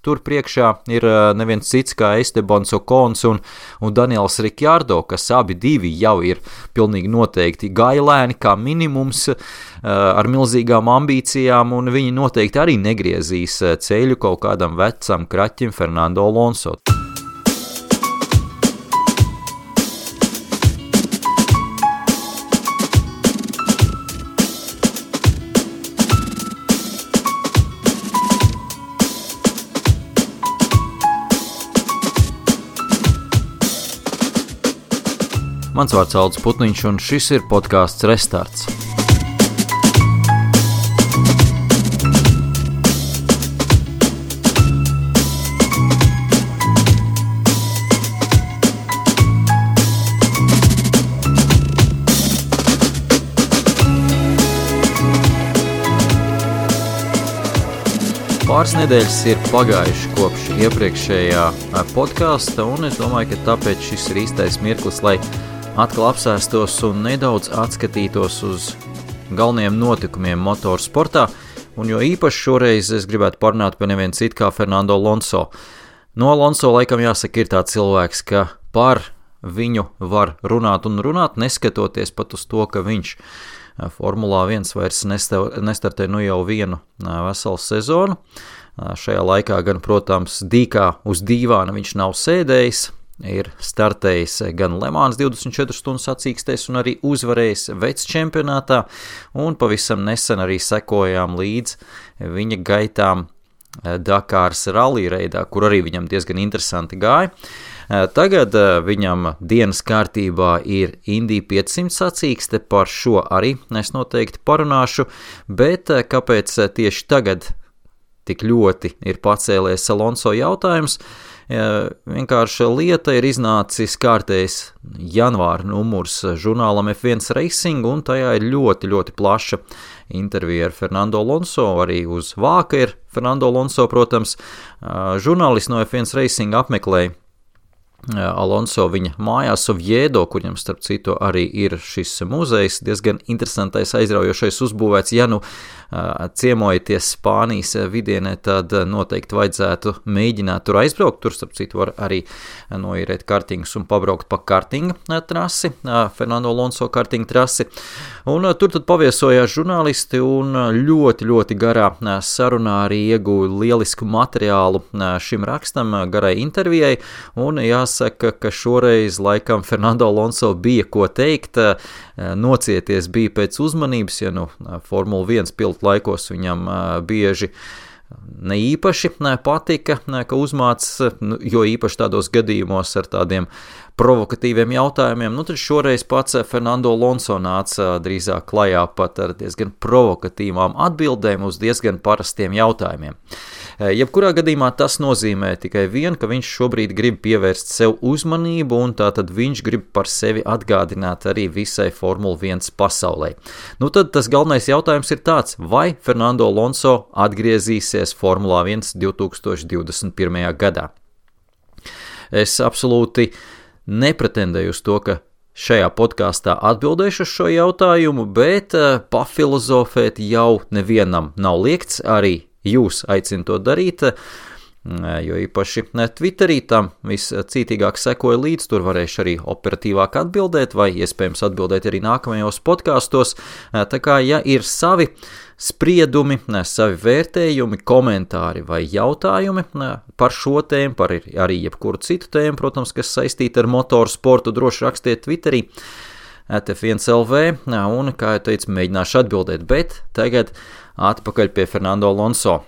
tur priekšā ir neviens cits kā Estebans Okons un Daniels Ricciardo, kas abi divi jau ir pilnīgi noteikti gailēni kā minimums ar milzīgām ambīcijām, un viņi noteikti arī negriezīs ceļu kaut kādam vecam kraķim Fernando Alonso. Mans vārds Aldis Putniņš, un šis ir podcasts Restarts. Pāris nedēļas ir pagājuši kopš iepriekšējā podkasta, un es domāju, ka tāpēc šis ir īstais mirklis, lai atkal apsēstos un nedaudz atskatītos uz galvenajiem notikumiem motorsportā, un jo īpaši šoreiz es gribētu parunāt par nevienu citu kā Fernando Alonso. No Alonso laikam jāsaka ir tāds cilvēks, ka par viņu var runāt un runāt, neskatoties pat uz to, ka viņš Formulā 1 vairs nestartē jau vienu veselu sezonu. Šajā laikā gan, protams, dīkā uz dīvāna viņš nav sēdējis, ir startējis gan Le Mans 24 stundu sacīkstēs un arī uzvarējis vecs čempionātā, un pavisam nesen arī sekojām līdz viņa gaitām Dakāras rallija reidā, kur arī viņam diezgan interesanti gāja. Tagad viņam dienas kārtībā ir Indy 500 sacīkste, par šo arī es noteikti parunāšu, bet kāpēc tieši tagad tik ļoti ir pacēlies Alonso jautājums? Vienkārši lieta ir iznācis kārtējs janvāra numurs žurnālam F1 Racing, un tajā ir ļoti, ļoti plaša intervija ar Fernando Alonso, arī uz vāka ir Fernando Alonso, protams. Žurnālisti no F1 Racing apmeklēja Alonso viņa mājās Oviedo, kuriem starp citu arī ir šis muzejs, diezgan interesantais, aizraujošais uzbūvēts. Ja nu ciemojaties Spānijas vidienē, tad noteikti vajadzētu mēģināt tur aizbraukt. Tur starp citu var arī noīrēt kartingus un pabraukt pa kartinga trasi, Fernando Alonso kartinga trasi. Un tur tad paviesojās žurnālisti un ļoti, ļoti garā sarunā arī ieguva lielisku materiālu šim rakstam, garai intervijai, un jāsaka, ka šoreiz laikam Fernando Alonso bija ko teikt, nocieties bija pēc uzmanības, ja nu Formula 1 pilotu laikos viņam bieži ne īpaši patika, ka uzmāc, jo īpaši tādos gadījumos ar tādiem provokatīviem jautājumiem, tad šoreiz pats Fernando Alonso nāca drīzāk klajā pat ar diezgan provokatīvām atbildēm uz diezgan parastiem jautājumiem. Jebkurā gadījumā tas nozīmē tikai vienu, ka viņš šobrīd grib pievērst sev uzmanību, un tātad viņš grib par sevi atgādināt arī visai Formula 1 pasaulē. Tad tas galvenais jautājums ir tāds, vai Fernando Alonso atgriezīsies Formulā 1 2021. gadā. Es absolūti nepretendēju uz to, ka šajā podkāstā atbildēšu uz šo jautājumu, bet pafilozofēt jau nevienam nav liekts, arī jūs aicinu to darīt, jo īpaši Twitterī tam viscītīgāk sekoja līdz, tur varēšu arī operatīvāk atbildēt, vai iespējams atbildēt arī nākamajos podkāstos. Tā kā, ja ir savi spriedumi, savi vērtējumi, komentāri vai jautājumi par šo tēmu, par arī jebkuru citu tēmu, protams, kas saistīta ar motorsportu, droši rakstiet Twitterī @F1LV, un, kā jau teicu, mēģināšu atbildēt, bet tagad atpakaļ pie Fernando Alonso.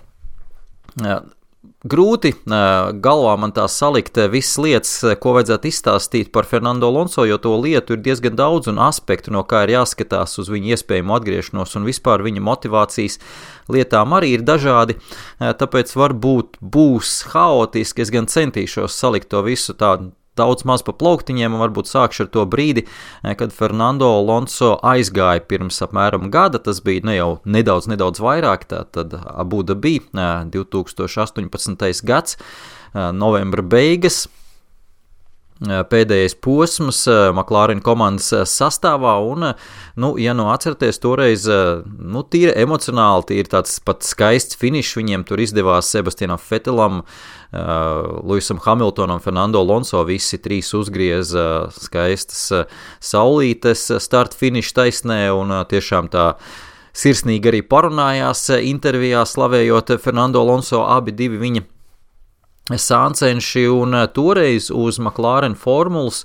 Grūti galvā man tā salikt visas lietas, ko vajadzētu izstāstīt par Fernando Alonso, jo to lietu ir diezgan daudz un aspektu, no kā ir jāskatās uz viņu iespējamo atgriešanos, un vispār viņa motivācijas lietām arī ir dažādi, tāpēc varbūt būs haotiski, es gan centīšos salikt to visu tādu daudz maz pa plauktiņiem, un varbūt sākšu ar to brīdi, kad Fernando Alonso aizgāja pirms apmēram gada, tas bija jau nedaudz vairāk, tad Abu Dhabi 2018. gads, novembra beigas, pēdējais posms McLaren komandas sastāvā, un, ja atceraties, toreiz, tīri emocionāli, tīri tāds pat skaists finišs viņiem tur izdevās Sebastianam Vettelam, Lewisam Hamiltonam, Fernando Alonso, visi trīs uzgrieza skaistas saulītes start finiša taisnē, un tiešām tā sirsnīgi arī parunājās intervijā, slavējot Fernando Alonso, abi divi viņa sāncenši, un toreiz uz McLaren formulas,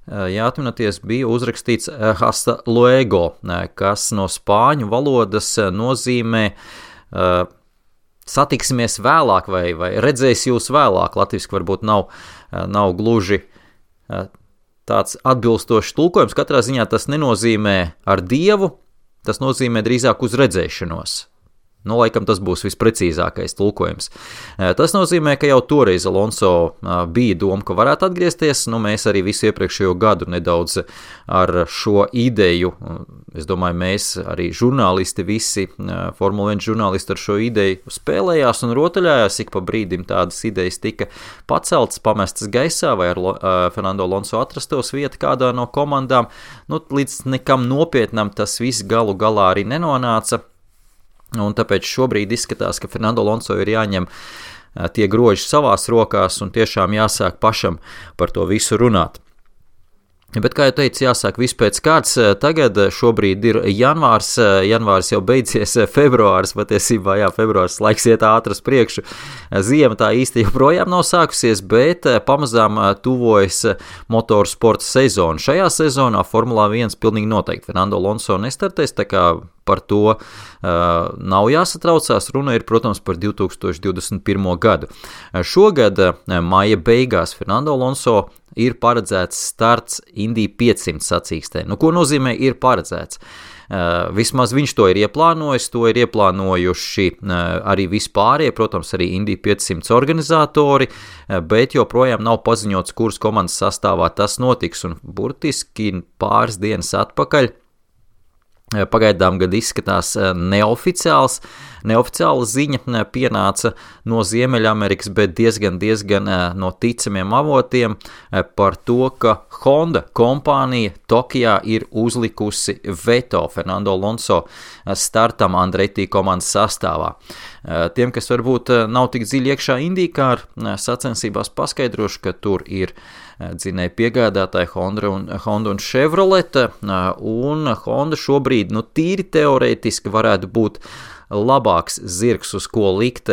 atminaties, bija uzrakstīts hasta luego, kas no spāņu valodas nozīmē satiksimies vēlāk vai redzēs jūs vēlāk. Latviski varbūt nav gluži tāds atbilstošs tulkojums. Katrā ziņā tas nenozīmē ar Dievu, tas nozīmē drīzāk uz redzēšanos. Laikam tas būs visprecīzākais tulkojums. Tas nozīmē, ka jau toreiz Alonso bija doma, ka varētu atgriezties. Mēs arī visu iepriekšējo gadu nedaudz ar šo ideju, es domāju, mēs arī žurnālisti, visi Formula 1 žurnālisti ar šo ideju spēlējās un rotaļājās. Ik pa brīdim tādas idejas tika paceltas, pamestas gaisā, vai ar Fernando Alonso atrastos vieta kādā no komandām. Līdz nekam nopietnam tas viss galu galā arī nenonāca. Un tāpēc šobrīd izskatās, ka Fernando Alonso ir jāņem tie groži savās rokās un tiešām jāsāk pašam par to visu runāt. Bet, kā jau teicu, jāsāk viss pēc kārtas. Tagad šobrīd ir janvārs jau beidzies, februārs, patiesībā, februārs laiks iet ātras priekšu. Ziema tā īsti joprojām nav sākusies, bet pamazām tuvojas motorsporta sezona. Šajā sezonā Formulā 1 pilnīgi noteikti Fernando Alonso nestartēs, tā kā par to nav jāsatraucās. Runa ir, protams, par 2021. gadu. Šogad maija beigās Fernando Alonso ir paredzēts starts Indy 500 sacīkstē. Ko nozīmē ir paredzēts? Vismaz viņš to ir ieplānojis, to ir ieplānojuši arī vispārējie, protams, arī Indy 500 organizatori, bet joprojām nav paziņots, kuras komandas sastāvā tas notiks, un burtiski pāris dienas atpakaļ pagaidām gad izskatās neoficiāla ziņa pienāca no Ziemeļamerikas, bet diezgan no ticamiem avotiem par to, ka Honda kompānija Tokijā ir uzlikusi veto Fernando Alonso startam Andretti komandas sastāvā. Tiem, kas varbūt nav tik dziļi iekšā IndyCar sacensībās, paskaidrošu, ka tur ir dzinēja piegādātāji Honda un Chevrolet, un Honda šobrīd, tīri teorētiski varētu būt labāks zirgs, uz ko likt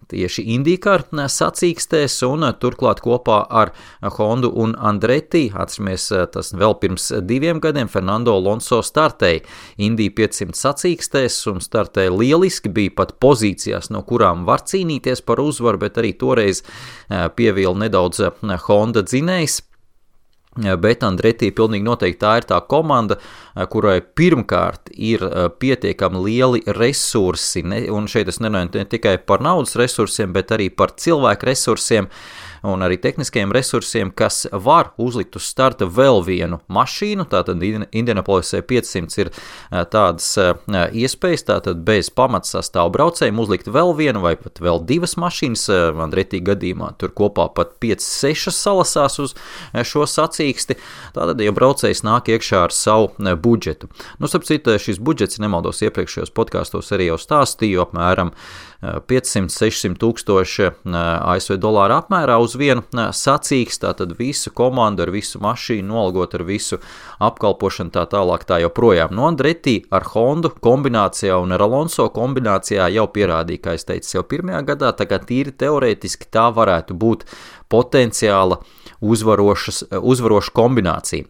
tieši IndyCar sacīkstēs, un turklāt kopā ar Hondu un Andretti, atceramies, tas vēl pirms 2 gadiem, Fernando Alonso startēja Indy 500 sacīkstēs un startēja lieliski, bija pat pozīcijās, no kurām var cīnīties par uzvaru, bet arī toreiz pievīla nedaudz Honda dzinējs. Bet Andretti pilnīgi noteikti tā ir tā komanda, kurai pirmkārt ir pietiekami lieli resursi, un šeit es nerunāju ne tikai par naudas resursiem, bet arī par cilvēku resursiem un arī tehniskajiem resursiem, kas var uzlikt uz starta vēl vienu mašīnu. Tātad Indianapolisē 500 ir tādas iespējas, tātad bez pamatsastāvu braucējiem uzlikt vēl vienu vai pat vēl 2 mašīnas. Andretti gadījumā tur kopā pat 5-6 salasās uz šo sacīksti. Tātad, ja braucējs nāk iekšā ar savu budžetu. Starp citu, šis budžets, nemaldos, iepriekšējos podkāstos arī jau stāstīju, apmēram 500-600 tūkstoši ASV dolāru apmērā uz vienu sacīksti, tātad visu komandu ar visu mašīnu, nolgot ar visu apkalpošanu tā tālāk tā joprojām. Andretti ar Hondu kombinācijā un ar Alonso kombinācijā jau pierādīja, kā es teicu, jau pirmajā gadā, tā kā tīri teorētiski tā varētu būt potenciāla uzvaroša kombinācija.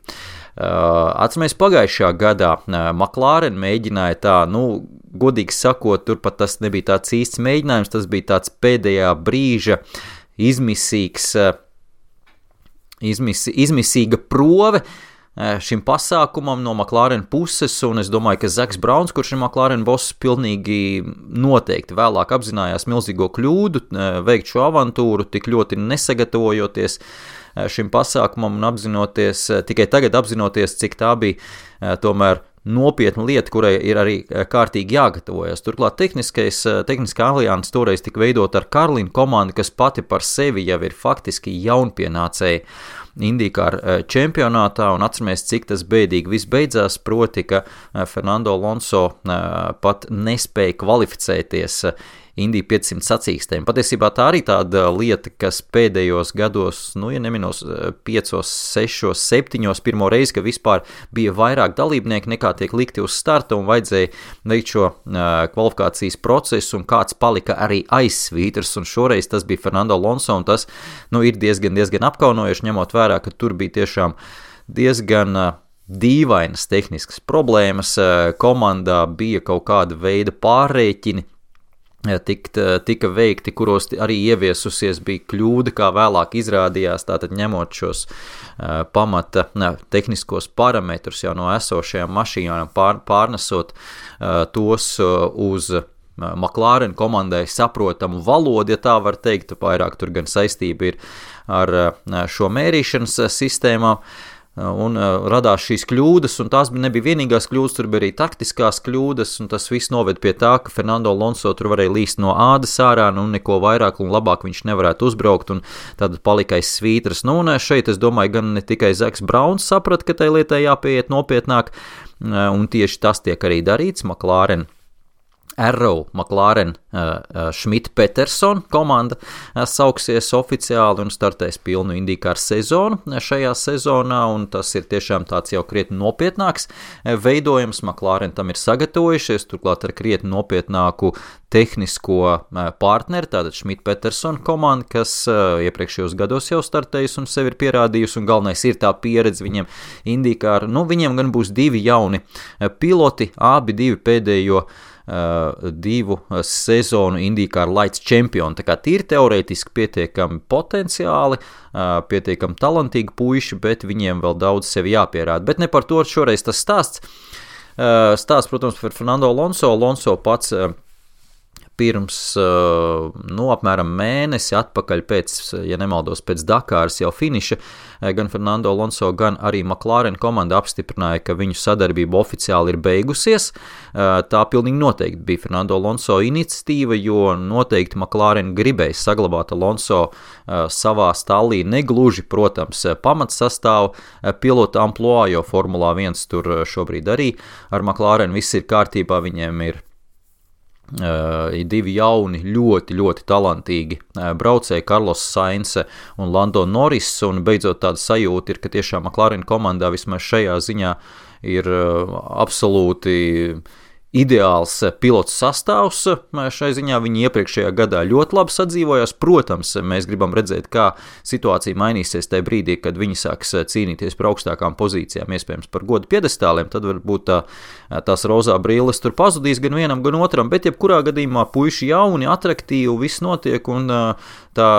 Atceramies, pagājušajā gadā McLaren mēģināja tā, godīgi sakot, turpat tas nebija tāds īsts mēģinājums, tas bija tāds pēdējā brīža izmisīga prove šim pasākumam no McLaren puses, un es domāju, ka Zaks Brauns, kurš ir McLaren boss, pilnīgi noteikti vēlāk apzinājās milzīgo kļūdu veikt šo avantūru, tik ļoti nesagatavojoties šim pasākumam un tikai tagad apzinoties, cik tā bija tomēr nopietna lieta, kurai ir arī kārtīgi jāgatavojas. Turklāt tehniskā alianse toreiz tika veidot ar Karlinu komandu, kas pati par sevi jau ir faktiski jaunpienācēji IndyCar čempionātā, un atceramies, cik tas bēdīgi viss beidzās, proti, ka Fernando Alonso pat nespēja kvalificēties Indy 500 sacīkstēm. Patiesībā tā arī tāda lieta, kas pēdējos gados, ja neminos 5, 6, 7, pirmo reizi, ka vispār bija vairāk dalībnieki nekā tiek likti uz starta un vajadzēja veikt šo kvalifikācijas procesu un kāds palika arī aizsvītrs, un šoreiz tas bija Fernando Alonso, un tas ir diezgan apkaunojoši, ņemot vērā, ka tur bija tiešām diezgan dīvainas tehniskas problēmas, komandā bija kaut kāda veida pārrēķini, tika veikti, kuros arī ieviesusies bija kļūda, kā vēlāk izrādījās, tātad ņemot šos pamata tehniskos parametrus jau no esošajām mašīnām, pārnesot tos uz McLaren komandai saprotamu valodu, ja tā var teikt, vairāk tur gan saistība ir ar šo mērīšanas sistēmām, un radās šīs kļūdas, un tās nebija vienīgās kļūdas, tur bija arī taktiskās kļūdas, un tas viss noved pie tā, ka Fernando Alonso tur varēja līst no ādas ārā, neko vairāk un labāk viņš nevarētu uzbraukt, un tad palika aiz svītras. Un šeit, es domāju, gan ne tikai Zaks Brauns saprata, ka tai lietai jāpieiet nopietnāk, un tieši tas tiek arī darīts. McLaren Schmidt-Peterson komanda sauksies oficiāli un startēs pilnu IndyCar sezonu šajā sezonā, un tas ir tiešām tāds jau krietni nopietnāks veidojums. McLaren tam ir sagatavojušies, turklāt ar krietni nopietnāku tehnisko partneri, tātad Schmidt-Peterson komanda, kas iepriekšējos gados jau startējusi un sevi ir pierādījusi, un galvenais ir tā pieredze viņiem IndyCar. Viņiem gan būs 2 jauni piloti, abi 2 pēdējo 2 sezonu IndyCar Lights čempioni, tā kā tīri teorētiski pietiekami potenciāli, pietiekami talantīgi puiši, bet viņiem vēl daudz sevi jāpierāda. Bet ne par to šoreiz tas stāsts. Stāsts, protams, par Fernando Alonso. Alonso pats pirms apmēram mēnesi atpakaļ pēc, ja nemaldos, pēc Dakāras jau finiša, gan Fernando Alonso, gan arī McLaren komanda apstiprināja, ka viņu sadarbība oficiāli ir beigusies. Tā pilnīgi noteikti bija Fernando Alonso iniciatīva, jo noteikti McLaren gribēja saglabāt Alonso savā stallī, negluži, protams, pamatsastāvu pilota amploā, jo Formulā 1 tur šobrīd arī ar McLaren viss ir kārtībā, viņiem ir 2 jauni, ļoti, ļoti talantīgi braucēji, Carlos Sainz un Lando Norris, un beidzot tāda sajūta ir, ka tiešām McLaren komandā vismaz šajā ziņā ir absolūti ideāls pilots sastāvs. Šai ziņā viņi iepriekšējā gadā ļoti labi sadzīvojās. Protams, mēs gribam redzēt, kā situācija mainīsies tajā brīdī, kad viņi sāks cīnīties par augstākām pozīcijām, iespējams par godu piedestāliem, tad varbūt tās rozā brīles tur pazudīs gan vienam, gan otram, bet jebkurā gadījumā puiši jauni, atraktīvi, viss notiek, un tā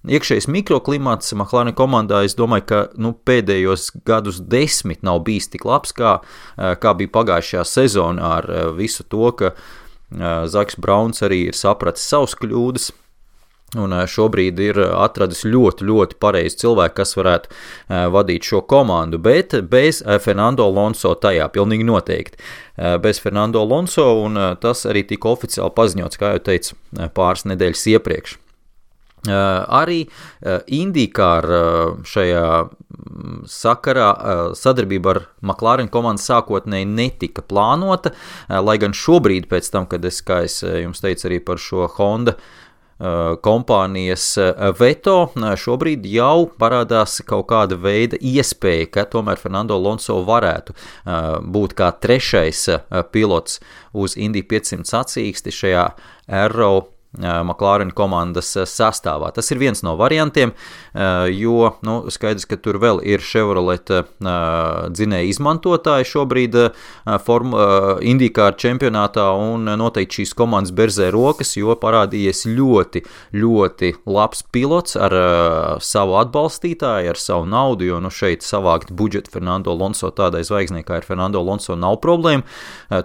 iekšējais mikroklimats McLaren komandā, es domāju, ka pēdējos gadus 10 nav bijis tik labs, kā bija pagājušajā sezonā, ar visu to, ka Zaks Brauns arī ir sapratis savus kļūdas, un šobrīd ir atradis ļoti, ļoti pareizi cilvēku, kas varētu vadīt šo komandu, bet bez Fernando Alonso tajā, pilnīgi noteikti. Bez Fernando Alonso, un tas arī tika oficiāli paziņots, kā jau teicu, pāris nedēļas iepriekš. Arī IndyCar šajā sakarā sadarbība ar McLaren komandu sākotnēji netika plānota, lai gan šobrīd pēc tam, kad kā es jums teicu arī par šo Honda kompānijas veto, šobrīd jau parādās kaut kāda veida iespēja, ka tomēr Fernando Alonso varētu būt kā 3. pilots uz Indy 500 sacīksti šajā Arrow McLaren komandas sastāvā. Tas ir viens no variantiem, jo skaidrs, ka tur vēl ir Chevrolet dzinēja izmantotāji šobrīd IndyCar čempionātā, un noteikti šīs komandas berzē rokas, jo parādījies ļoti, ļoti labs pilots ar savu atbalstītāju, ar savu naudu, jo šeit savākt budžetu Fernando Alonso tādai zvaigznei, kā ir Fernando Alonso, nav problēma.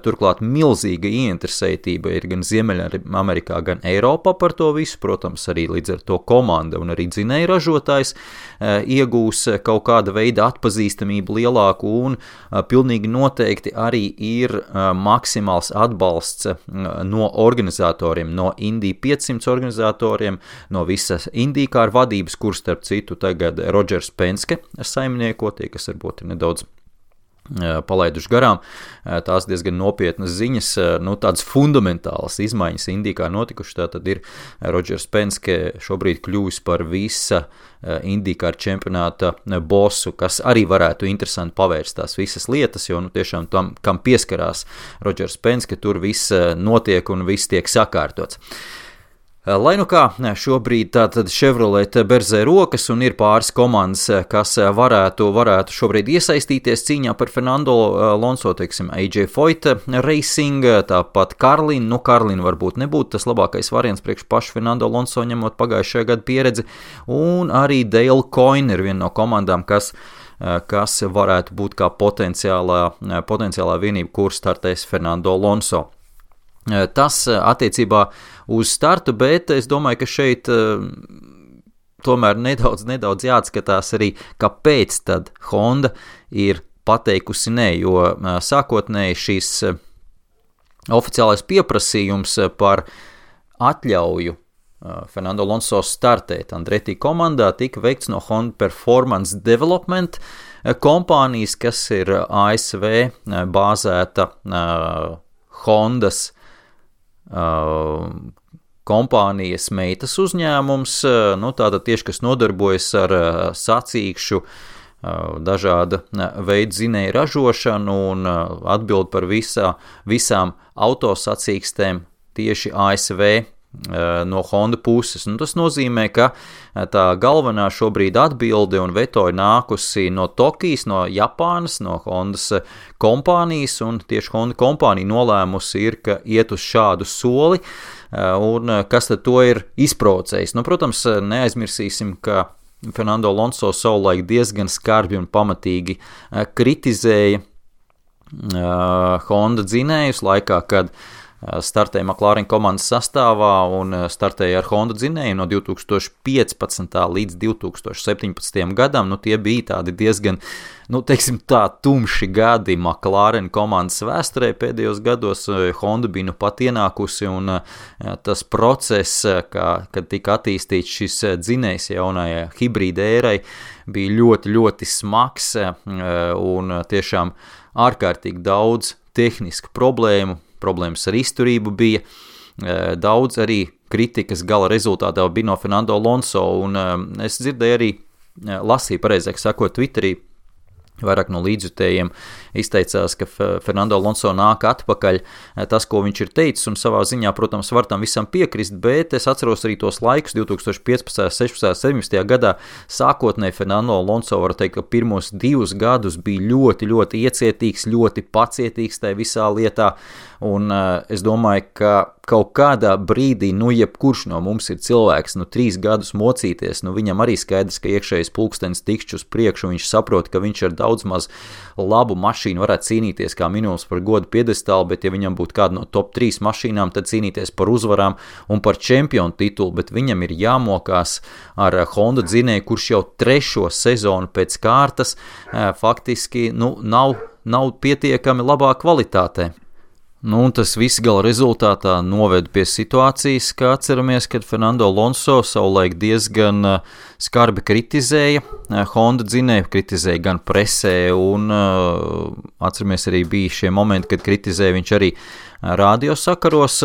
Turklāt milzīga ieinteresētība ir gan Ziemeļamerikā, gan Eiropā Eiropā par to visu, protams, arī līdz ar to komanda un arī dzinēja ražotājs iegūs kaut kāda veida atpazīstamību lielāku un pilnīgi noteikti arī ir maksimāls atbalsts no organizatoriem, no Indy 500 organizatoriem, no visas IndyCar vadības, kur starp citu tagad Rodžers Penske saimnieko, tie, kas varbūt ir nedaudz palaiduši garām, tās diezgan nopietnas ziņas, tādas fundamentālas izmaiņas IndyCar notikuši, tātad ir Rodžers Penske šobrīd kļuvis par visa IndyCar čempionāta bosu, kas arī varētu interesanti pavērst tās visas lietas, jo tiešām tam, kam pieskarās Rodžers Penske, tur viss notiek un viss tiek sakārtots. Lai nu kā, šobrīd tātad Chevrolet berzē rokas un ir pāris komandas, kas varētu šobrīd iesaistīties cīņā par Fernando Alonso, teiksim, AJ Foyt Racing, tāpat Carlin, Carlin varbūt nebūtu tas labākais variants priekš pašu Fernando Alonso, ņemot pagājušajā gadu pieredzi, un arī Dale Coyne ir viena no komandām, kas varētu būt kā potenciālā vienība, kur startēs Fernando Alonso. Tas attiecībā uz startu, bet es domāju, ka šeit tomēr nedaudz jāatskatās arī, kāpēc tad Honda ir pateikusi nē, jo sākotnēji šīs oficiālais pieprasījums par atļauju Fernando Alonso startēt Andretti komandā tika veikts no Honda Performance Development kompānijas, kas ir ASV bāzēta Hondas kompānijas meitas uzņēmums, tātad tieši, kas nodarbojas ar sacīkšu dažāda veida dzinēju ražošanu un atbild par visām autosacīkstēm tieši ASV no Honda puses. Tas nozīmē, ka tā galvenā šobrīd atbilde un veto ir nākusi no Tokijas, no Japānas, no Hondas kompānijas, un tieši Honda kompānija nolēmusi ir, ka iet uz šādu soli, un kas tad to ir izprovocējis. Protams, neaizmirsīsim, ka Fernando Alonso savulaik diezgan skarbi un pamatīgi kritizēja Honda dzinējus laikā, kad startēja McLaren komandas sastāvā un startēja ar Honda dzinēju no 2015. līdz 2017. gadam. Tie bija tādi diezgan, teiksim tā, tumši gadi McLaren komandas vēsturē pēdējos gados. Honda bija pat ienākusi un tas process, kad tika attīstīts šis dzinējs jaunajai hibrīda ērai, bija ļoti, ļoti smags un tiešām ārkārtīgi daudz tehnisku problēmas ar izturību bija, daudz arī kritikas gala rezultātā bija no Fernando Alonso, un es dzirdēju arī, lasīju pareizāk sakot Twitterī, vairāk no līdzjutējiem izteicās, ka Fernando Alonso nāk atpakaļ tas, ko viņš ir teicis, un savā ziņā, protams, var tam visam piekrist, bet es atceros arī tos laikus 2015., 16., 17. gadā sākotnēji Fernando Alonso, var teikt, ka pirmos 2 gadus bija ļoti, ļoti iecietīgs, ļoti pacietīgs tajā visā lietā, un es domāju, ka kaut kādā brīdī, jebkurš no mums ir cilvēks, 3 gadus mocīties, viņam arī skaidrs, ka iekšējais pulkstenis tikšķi uz priekšu, viņš saprot, ka viņš ar daudz maz labu mašīnu varētu cīnīties kā minimums par godu piedestālu, bet ja viņam būtu kāda no top 3 mašīnām, tad cīnīties par uzvarām un par čempionu titulu, bet viņam ir jāmokās ar Honda dzinēju, kurš jau 3. sezonu pēc kārtas faktiski nav pietiekami labā kvalitātē. Tas viss gala rezultātā noved pie situācijas, kā atceramies, kad Fernando Alonso savulaik diezgan skarbi kritizēja Honda dzinēju, kritizēja gan presē, un atceramies arī bija šie momenti, kad kritizēja viņš arī radiosakaros,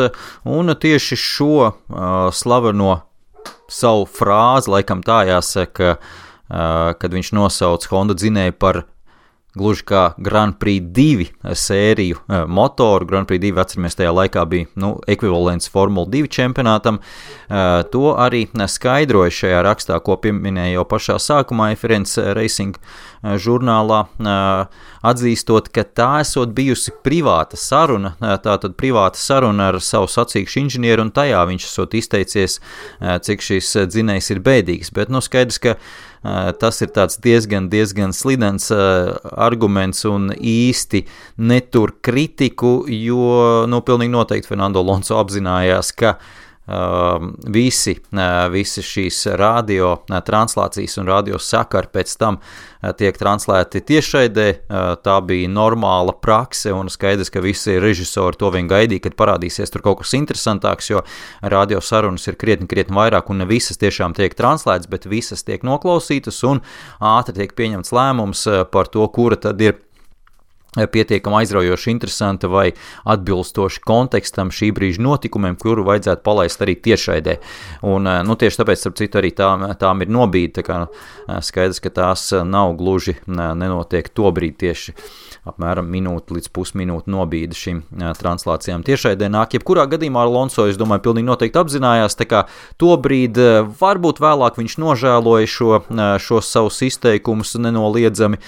un tieši šo slaveno savu frāzi, laikam tā jāsaka, kad viņš nosauc Honda dzinēju par gluži kā Grand Prix 2 sēriju motoru. Grand Prix 2, atceramies, tajā laikā bija ekvivalents Formula 2 čempionātam. To arī skaidroja šajā rakstā, ko pieminēja jau pašā sākumā F1 Racing žurnālā, atzīstot, ka tā esot bijusi privāta saruna, tātad privāta saruna ar savu sacīkšu inženieru, un tajā viņš esot izteicies, cik šis dzinējs ir bēdīgs. Bet skaidrs, ka tas ir tāds diezgan slidens arguments un īsti netur kritiku, jo pilnīgi noteikti Fernando Alonso apzinājās, ka visi šīs radio translācijas un radio sakari pēc tam tiek translēti tiešraidē. Tā bija normāla prakse un skaidrs, ka visi režisori to vien gaidīja, kad parādīsies tur kaut kas interesantāks, jo radio sarunas ir krietni vairāk un ne visas tiešām tiek translētas, bet visas tiek noklausītas un ātri tiek pieņemts lēmums par to, kura tad ir pietiekami aizraujoši interesanta vai atbilstoši kontekstam šī brīža notikumiem, kuru vajadzētu palaist arī tiešraidē. Un, tieši tāpēc, starp citu, arī tām ir nobīde, tā kā skaidrs, ka tās nav gluži, nenotiek to brīdi tieši apmēram minūte līdz pusminūte nobīde šīm translācijām tiešraidē nāk. Jebkurā gadījumā Alonso, es domāju, pilnīgi noteikti apzinājās, tā kā to brīdi varbūt vēlāk viņš nožēloja šos savus izteikumus nenoliedzami,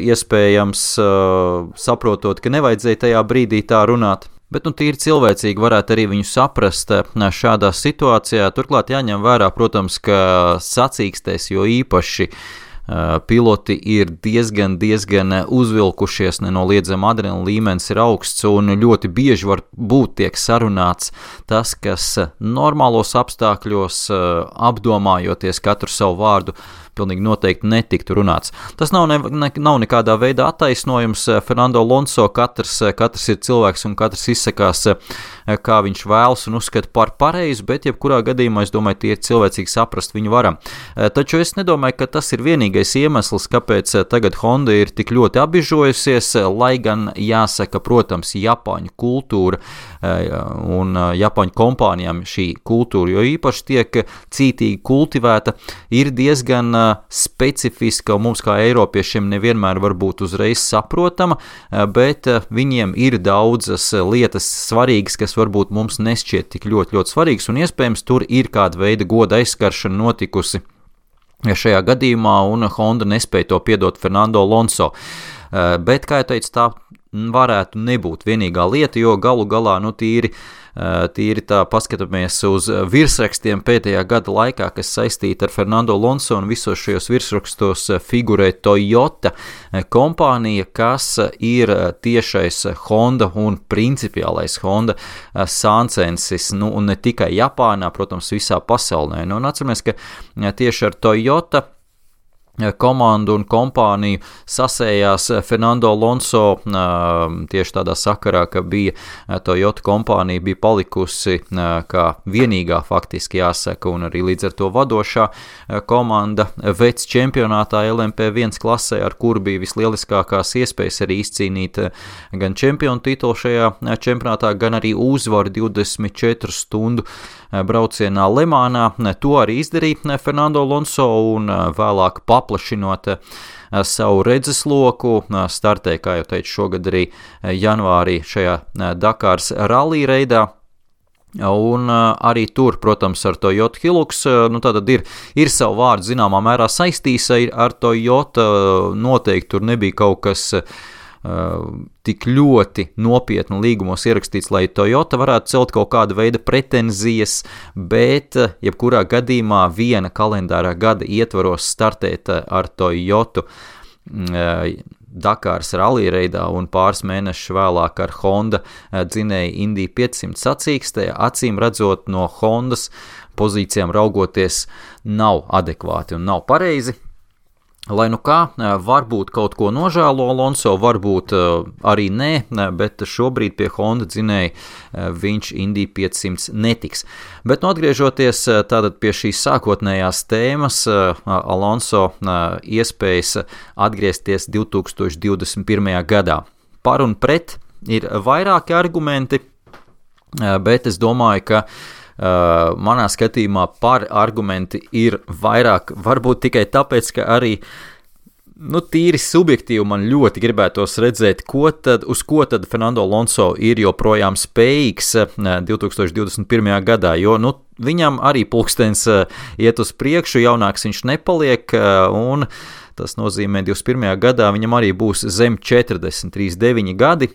iespējams saprotot, ka nevajadzēja tajā brīdī tā runāt. Bet tīri cilvēcīgi varētu arī viņu saprast šādā situācijā. Turklāt jāņem vērā, protams, ka sacīkstēs, jo īpaši piloti ir diezgan uzvilkušies, nenoliedzami adrenalīna līmenis ir augsts un ļoti bieži var būt tiek sarunāts tas, kas normālos apstākļos, apdomājoties katru savu vārdu, pilnīgi noteikti netiktu runāts. Tas nav nekādā veidā attaisnojums. Fernando Alonso katrs ir cilvēks un katrs izsakās, kā viņš vēlas un uzskata par pareizu, bet jebkurā gadījumā, es domāju, tie ir cilvēcīgi saprast viņu varam. Taču es nedomāju, ka tas ir vienīgais iemesls, kāpēc tagad Honda ir tik ļoti apbižojusies, lai gan jāsaka, protams, Japāņu kultūra un Japāņu kompānijām šī kultūra, jo īpaši tiek cītīgi kultivēta, ir diezgan specifiska un mums kā eiropiešiem nevienmēr var būt uzreiz saprotama, bet viņiem ir daudzas lietas svarīgas, kas varbūt mums nešķiet tik ļoti svarīgas, un iespējams tur ir kāda veida goda aizskaršana notikusi šajā gadījumā, un Honda nespēja to piedot Fernando Alonso. Bet, kā jau teicu, tā varētu nebūt vienīgā lieta, jo galu galā, tīri tā paskatāmies uz virsrakstiem pēdējā gada laikā, kas saistīti ar Fernando Alonso, un visos šajos virsrakstos figurē Toyota kompānija, kas ir tiešais Honda un principiālais Honda sāncensis, un ne tikai Japānā, protams, visā pasaulē. Un atceramies, ka tieši ar Toyota komandu un kompāniju sasējās Fernando Alonso tieši tādā sakarā, ka bija Toyota kompānija bija palikusi kā vienīgā faktiski jāsaka un arī līdz ar to vadošā komanda vecs čempionātā LMP1 klasē, ar kuru bija vislieliskākās iespējas arī izcīnīt gan čempionu titulu šajā čempionātā, gan arī uzvaru 24 stundu braucienā Lemānā. To arī izdarīja Fernando Alonso un vēlāk paplašinot savu redzesloku, startēja, kā jau teicu, šogad arī janvārī šajā Dakāras rallī reidā. Un arī tur, protams, ar Toyota Hilux, tātad ir savu vārdu zināmā mērā saistīs ar Toyota, noteikti tur nebija kaut kas tik ļoti nopietni līgumos ierakstīts, lai Toyota varētu celt kaut kāda veida pretenzijas, bet jebkurā gadījumā viena kalendārā gada ietvaros startēt ar Toyotu Dakāras rallī reidā un pāris mēnešus vēlāk ar Honda dzinēju Indy 500 sacīkstē, acīm redzot no Hondas pozīcijām raugoties nav adekvāti un nav pareizi. Lai nu kā, varbūt kaut ko nožēlo Alonso, varbūt arī nē, bet šobrīd pie Honda dzinēja viņš Indy 500 netiks. Bet atgriežoties tātad pie šīs sākotnējās tēmas, Alonso iespējas atgriezties 2021. gadā. Par un pret ir vairāki argumenti, bet es domāju, ka manā skatījumā par argumenti ir vairāk, varbūt tikai tāpēc, ka arī tīri subjektīvi man ļoti gribētos redzēt, uz ko tad Fernando Alonso ir joprojām spējīgs 2021. gadā, jo viņam arī pulkstens iet uz priekšu, jaunāks viņš nepaliek, un tas nozīmē 21. gadā viņam arī būs zem 40, 39 gadi.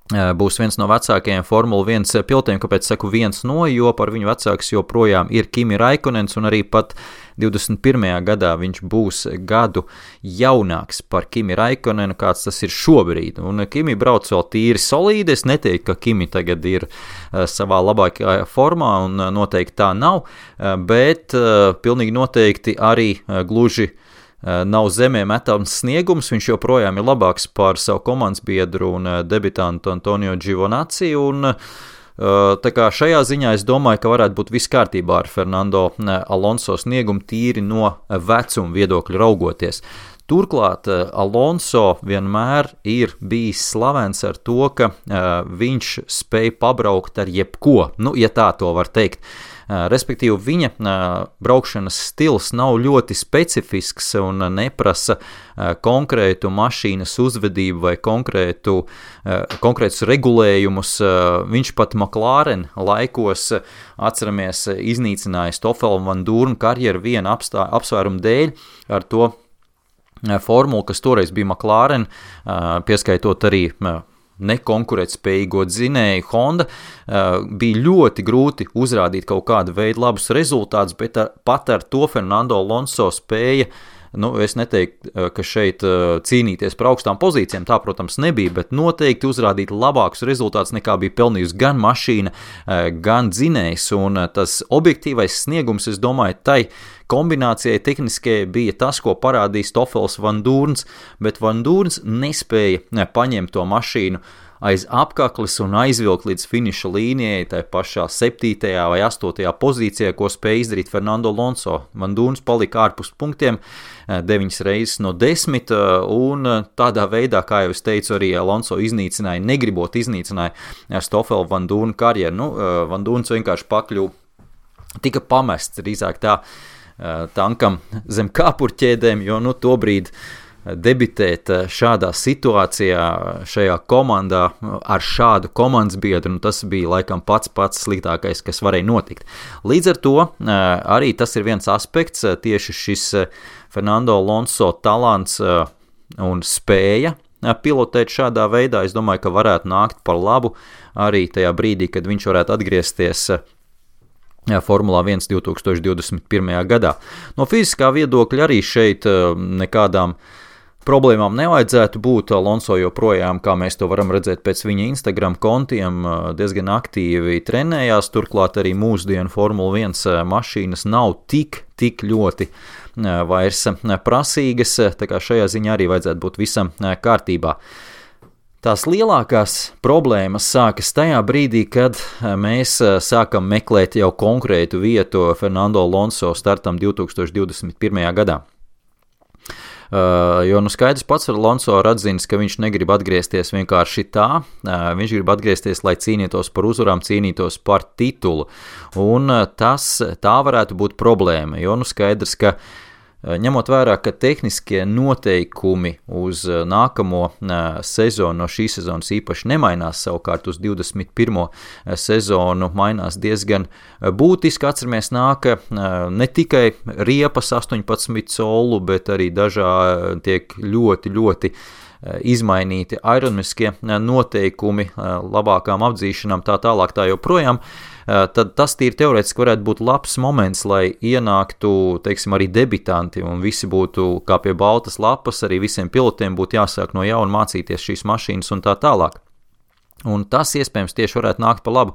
būs viens no vecākajiem Formula 1 pilotiem, kāpēc saku viens no, jo par viņu vecāks joprojām ir Kimi Raikkonens, un arī pat 21. gadā viņš būs gadu jaunāks par Kimi Raikkonenu, kāds tas ir šobrīd. Un Kimi brauc vēl tīri solīdi, es neteiktu, ka Kimi tagad ir savā labākajā formā, un noteikti tā nav, bet pilnīgi noteikti arī gluži nav zemē metams sniegums, viņš joprojām ir labāks par savu komandas biedru un debitantu Antonio Giovinazzi, un tā kā šajā ziņā es domāju, ka varētu būt viss kārtībā ar Fernando Alonso sniegumu tīri no vecuma viedokļa raugoties. Turklāt Alonso vienmēr ir bijis slavens ar to, ka viņš spēj pabraukt ar jebko, ja tā to var teikt. Respektīvi, viņa braukšanas stils nav ļoti specifisks un neprasa konkrētu mašīnas uzvedību vai konkrētus regulējumus. Viņš pat McLaren laikos, atceramies, iznīcināja Stoffela Van Dorna karjeru viena apsvērumu dēļ ar to formulu, kas toreiz bija McLaren, pieskaitot arī nekonkurētspējīgo dzinēju Honda, bija ļoti grūti uzrādīt kaut kādu veidu labus rezultātus, bet pat ar to Fernando Alonso spēja, es neteiktu, ka šeit cīnīties par augstām pozīcijām, tā, protams, nebija, bet noteikti uzrādīt labākus rezultātus nekā bija pelnījusi gan mašīna, gan dzinējs, un tas objektīvais sniegums, es domāju, tai kombinācijai tehniskajai bija tas, ko parādīja Stoffels Van Dorns, bet Van Dorns nespēja paņemt to mašīnu aiz apkakles un aizvilkt līdz finiša līnijai, tai pašā 7. vai 8. pozīcijā, ko spēja izdarīt Fernando Alonso. Van Dorns palika ārpus punktiem 9 reizes no 10, un tādā veidā, kā jau es teicu, arī Alonso iznīcināja, negribot iznīcināja Stoffela Van Dorna karjeru. Van Dorns vienkārši tika pamests drīzāk tā tankam zem kāpurķēdēm, jo tobrīd debitēt šādā situācijā, šajā komandā ar šādu komandas biedru, tas bija laikam pats sliktākais, kas varēja notikt. Līdz ar to arī tas ir viens aspekts, tieši šis Fernando Alonso talants un spēja pilotēt šādā veidā. Es domāju, ka varētu nākt par labu arī tajā brīdī, kad viņš varētu atgriezties Formulā 1 2021. gadā. No fiziskā viedokļa arī šeit nekādām problēmām nevajadzētu būt. Alonso joprojām, kā mēs to varam redzēt pēc viņa Instagram kontiem, diezgan aktīvi trenējās, turklāt arī mūsdienu Formula 1 mašīnas nav tik ļoti vairs prasīgas, tā kā šajā ziņā arī vajadzētu būt visam kārtībā. Tās lielākās problēmas sākas tajā brīdī, kad mēs sākam meklēt jau konkrētu vietu Fernando Alonso startam 2021. gadā. Jo skaidrs pats ar Alonso ir atzinis, ka viņš negrib atgriezties vienkārši tā, viņš grib atgriezties, lai cīnītos par uzvarām, cīnītos par titulu, un tā varētu būt problēma, jo skaidrs, ka ņemot vērā, ka tehniskie noteikumi uz nākamo sezonu no šīs sezonas īpaši nemainās, savukārt uz 21. sezonu mainās diezgan būtiski. Atceramies, nāk ne tikai riepas 18 colu, bet arī tiek ļoti izmainīti aerodinamiskie noteikumi labākām apdzīšanām, tā tālāk tā joprojām. Tad tas tīri teorētiski varētu būt labs moments, lai ienāktu, teiksim, arī debitanti un visi būtu kā pie baltas lapas, arī visiem pilotiem būtu jāsāk no jauna mācīties šīs mašīnas un tā tālāk. Un tas iespējams tieši varētu nākt pa labu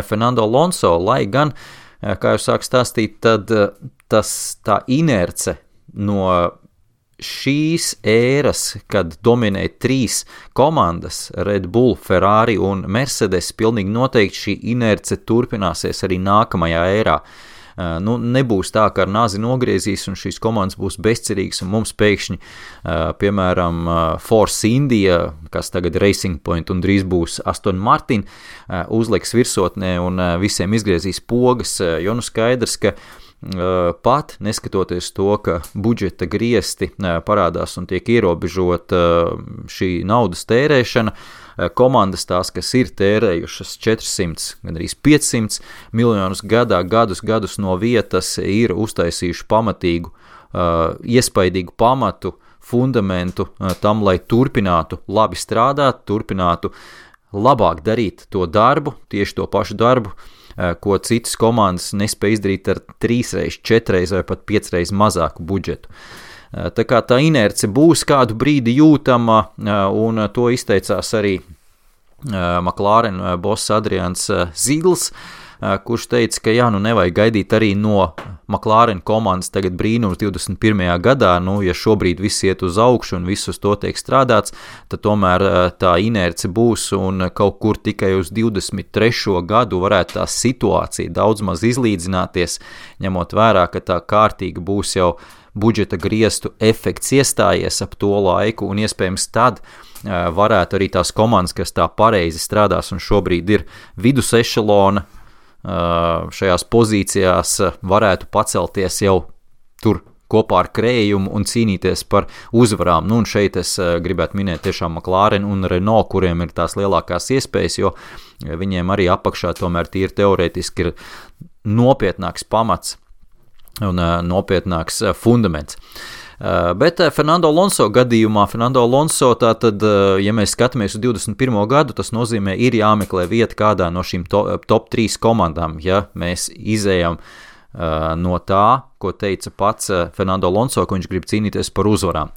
Fernando Alonso, lai gan, kā jau sāk stāstīt, tad tā inerce no šīs ēras, kad dominē 3 komandas, Red Bull, Ferrari un Mercedes, pilnīgi noteikti šī inerce turpināsies arī nākamajā ērā. Nebūs tā, ka ar nāzi nogriezīs un šīs komandas būs bezcerīgas un mums pēkšņi, piemēram, Force India, kas tagad Racing Point un drīz būs Aston Martin, uzliks virsotnē un visiem izgriezīs pogas, jo skaidrs, ka pat neskatoties to, ka budžeta griesti parādās un tiek ierobežota šī naudas tērēšana, komandas tās, kas ir tērējušas 400, gandrīz 500 miljonus gadā, gadus no vietas, ir uztaisījuši pamatīgu, iespaidīgu pamatu, fundamentu tam, lai turpinātu labi strādāt, turpinātu labāk darīt to darbu, tieši to pašu darbu, ko citas komandas nespēja izdarīt ar 3, 4 vai pat 5 mazāku budžetu. Tā kā tā inerce būs kādu brīdi jūtama, un to izteicās arī McLaren boss Adrians Zigls, kurš teica, ka nevajag gaidīt arī no McLaren komandas tagad brīnums 21. gadā, ja šobrīd viss iet uz augšu un viss uz to tiek strādāts, tad tomēr tā inerce būs un kaut kur tikai uz 23. gadu varētu tā situācija daudz maz izlīdzināties, ņemot vērā, ka tā kārtīgi būs jau budžeta griestu efekts iestājies ap to laiku, un iespējams tad varētu arī tās komandas, kas tā pareizi strādās un šobrīd ir vidus ešelona, šajās pozīcijās varētu pacelties jau tur kopā ar krējumu un cīnīties par uzvarām. Un šeit es gribētu minēt tiešām McLaren un Renault, kuriem ir tās lielākās iespējas, jo viņiem arī apakšā tomēr tīri teorētiski ir nopietnāks pamats un nopietnāks fundaments. Bet Fernando Alonso gadījumā, tātad, ja mēs skatāmies uz 21. gadu, tas nozīmē, ir jāmeklē vieta kādā no šīm top 3 komandām, ja mēs izējam no tā, ko teica pats Fernando Alonso, ka viņš grib cīnīties par uzvarām.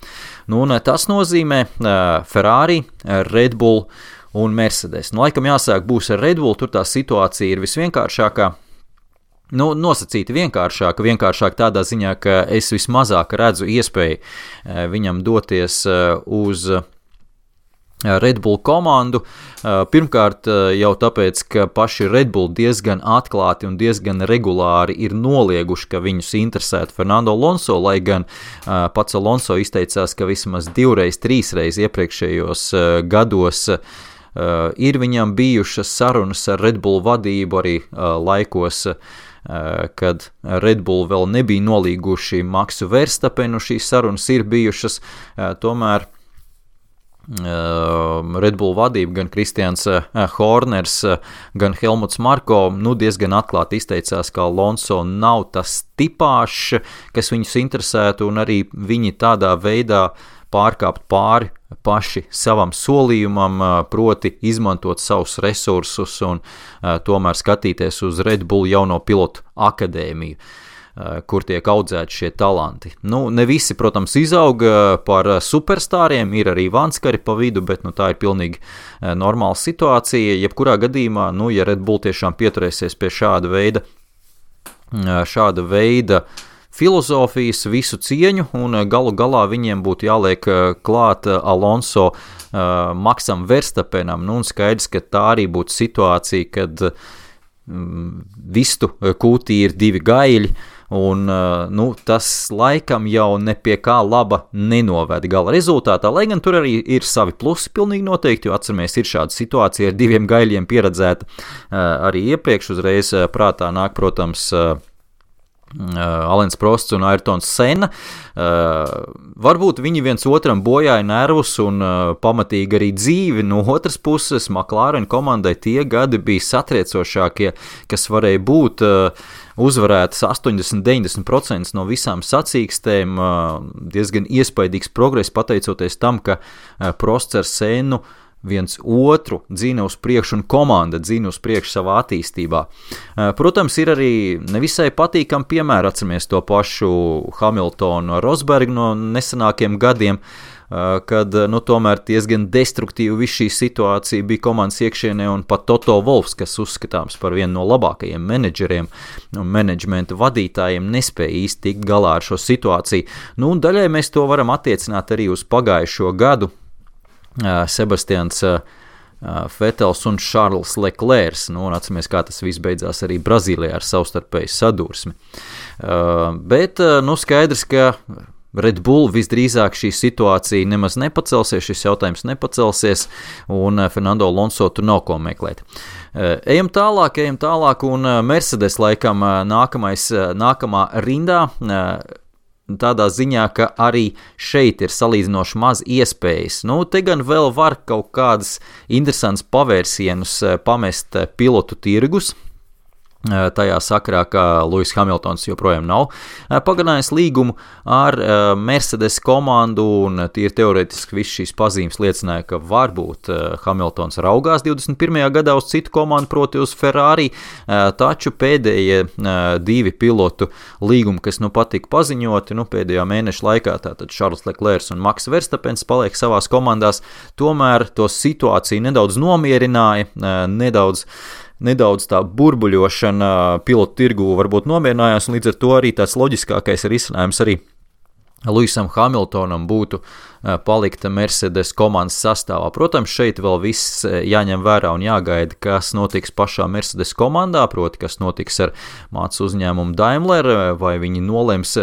Un tas nozīmē Ferrari, Red Bull un Mercedes. Laikam jāsāk būs ar Red Bull, tur tā situācija ir visvienkāršākā. Nosacīti vienkāršāk tādā ziņā, ka es vismazāk redzu iespēju viņam doties uz Red Bull komandu. Pirmkārt jau tāpēc, ka paši Red Bull diezgan atklāti un diezgan regulāri ir nolieguši, ka viņus interesētu Fernando Alonso, lai gan pats Alonso izteicās, ka vismaz 2, 3 iepriekšējos gados ir viņam bijušas sarunas ar Red Bull vadību arī laikos, kad Red Bull vēl nebija nolīguši Maxu Verstappenu, šīs sarunas ir bijušas, tomēr Red Bull vadība, gan Kristians Horners, gan Helmuts Marko, diezgan atklāti izteicās, ka Alonso nav tas tipāšs, kas viņus interesētu, un arī viņi tādā veidā pārkāpt pāri paši savam solījumam, proti izmantot savus resursus un tomēr skatīties uz Red Bull jauno pilotu akadēmiju, kur tiek audzēti šie talanti. Ne visi, protams, izauga par superstāriem, ir arī vanskari pa vidu, bet tā ir pilnīgi normāla situācija. Jebkurā gadījumā, ja Red Bull tiešām pieturēsies pie šāda veida filozofijas, visu cieņu, un galu galā viņiem būtu jāliek klāt Alonso Maxam Verstappenam, un skaidrs, ka tā arī būtu situācija, kad vistu kūtī ir 2 gaļi, un tas laikam jau ne pie kā laba nenoved gala rezultātā, lai gan tur arī ir savi plusi pilnīgi noteikti, jo atceramies, ir šāda situācija ar 2 gaļiem pieredzēta arī iepriekš, uzreiz prātā nāk, protams, Alens Prosts un Ayrtons Senna. Varbūt viņi viens otram bojāja nervus un pamatīgi arī dzīvi. No otras puses, McLaren komandai tie gadi bija satriecošākie, kas varēja būt uzvarētas 80-90% no visām sacīkstēm. Diezgan iespaidīgs progress pateicoties tam, ka Prosts ar Sennu viens otru dzīna uz priekšu un komanda dzīna uz priekšu savā attīstībā. Protams, ir arī nevisai patīkami piemēri, atceramies to pašu Hamiltonu Rosbergu no nesenākiem gadiem, kad tomēr diezgan destruktīvi viss šī situācija bija komandas iekšienē, un pat Toto Wolffs, kas uzskatāms par vienu no labākajiem menedžeriem un menedžmenta vadītājiem, nespēja īsti tikt galā ar šo situāciju. Un daļai mēs to varam attiecināt arī uz pagājušo gadu. Sebastians Vetels un Charles Leclerc, un atceramies, kā tas viss beidzās arī Brazīlijā ar savstarpēju sadursmi. Bet, skaidrs, ka Red Bull visdrīzāk šī situācija nemaz nepacelsies, šis jautājums nepacelsies, un Fernando Alonso tur nav ko meklēt. Ejam tālāk, un Mercedes laikam nākamā rindā, tādā ziņā, ka arī šeit ir salīdzinoši maz iespējas. Te gan vēl var kaut kādas interesantas pavērsienus pamest pilotu tirgus, tajā sakarā, ka Lewis Hamiltons joprojām nav pagarinājis līgumu ar Mercedes komandu, un tīri teorētiski viss šīs pazīmes liecināja, ka varbūt Hamiltons raugās 21. gadā uz citu komandu, proti uz Ferrari, taču pēdējie 2 pilotu līgumi, kas patika paziņoti, pēdējā mēneša laikā, tātad Charles Leclerc un Max Verstappens paliek savās komandās, tomēr to situāciju nedaudz nomierināja, nedaudz tā burbuļošana pilotu tirgu varbūt nomierinājās, un līdz ar to arī tāds loģiskākais risinājums arī Lewisam Hamiltonam būtu palikt Mercedes komandas sastāvā. Protams, šeit vēl viss jāņem vērā un jāgaida, kas notiks pašā Mercedes komandā, proti, kas notiks ar mācu uzņēmumu Daimler, vai viņi nolems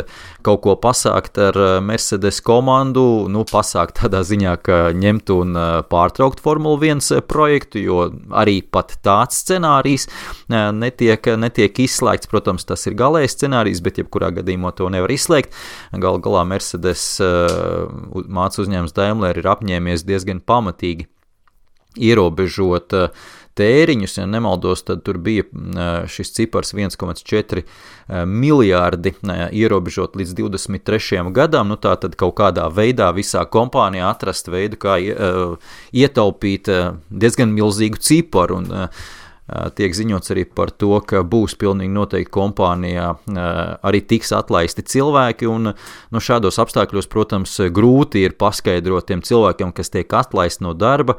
kaut ko pasākt ar Mercedes komandu, pasākt tādā ziņā, ka ņemt un pārtraukt Formula 1 projektu, jo arī pat tāds scenārijs netiek izslēgts. Protams, tas ir galējs scenārijs, bet jebkurā gadījumā to nevar izslēgt. Galā Mercedes mācu uzņēmums Daimler ir apņēmies diezgan pamatīgi ierobežot tēriņus, ja nemaldos, tad tur bija šis cipars 1,4 miljārdi ierobežot līdz 23. gadam, tā tad kaut kādā veidā visā kompānijā atrast veidu, kā ietaupīt diezgan milzīgu ciparu, un tiek ziņots arī par to, ka būs pilnīgi noteikti kompānijā arī tiks atlaisti cilvēki, un šādos apstākļos, protams, grūti ir paskaidrot tiem cilvēkiem, kas tiek atlaisti no darba,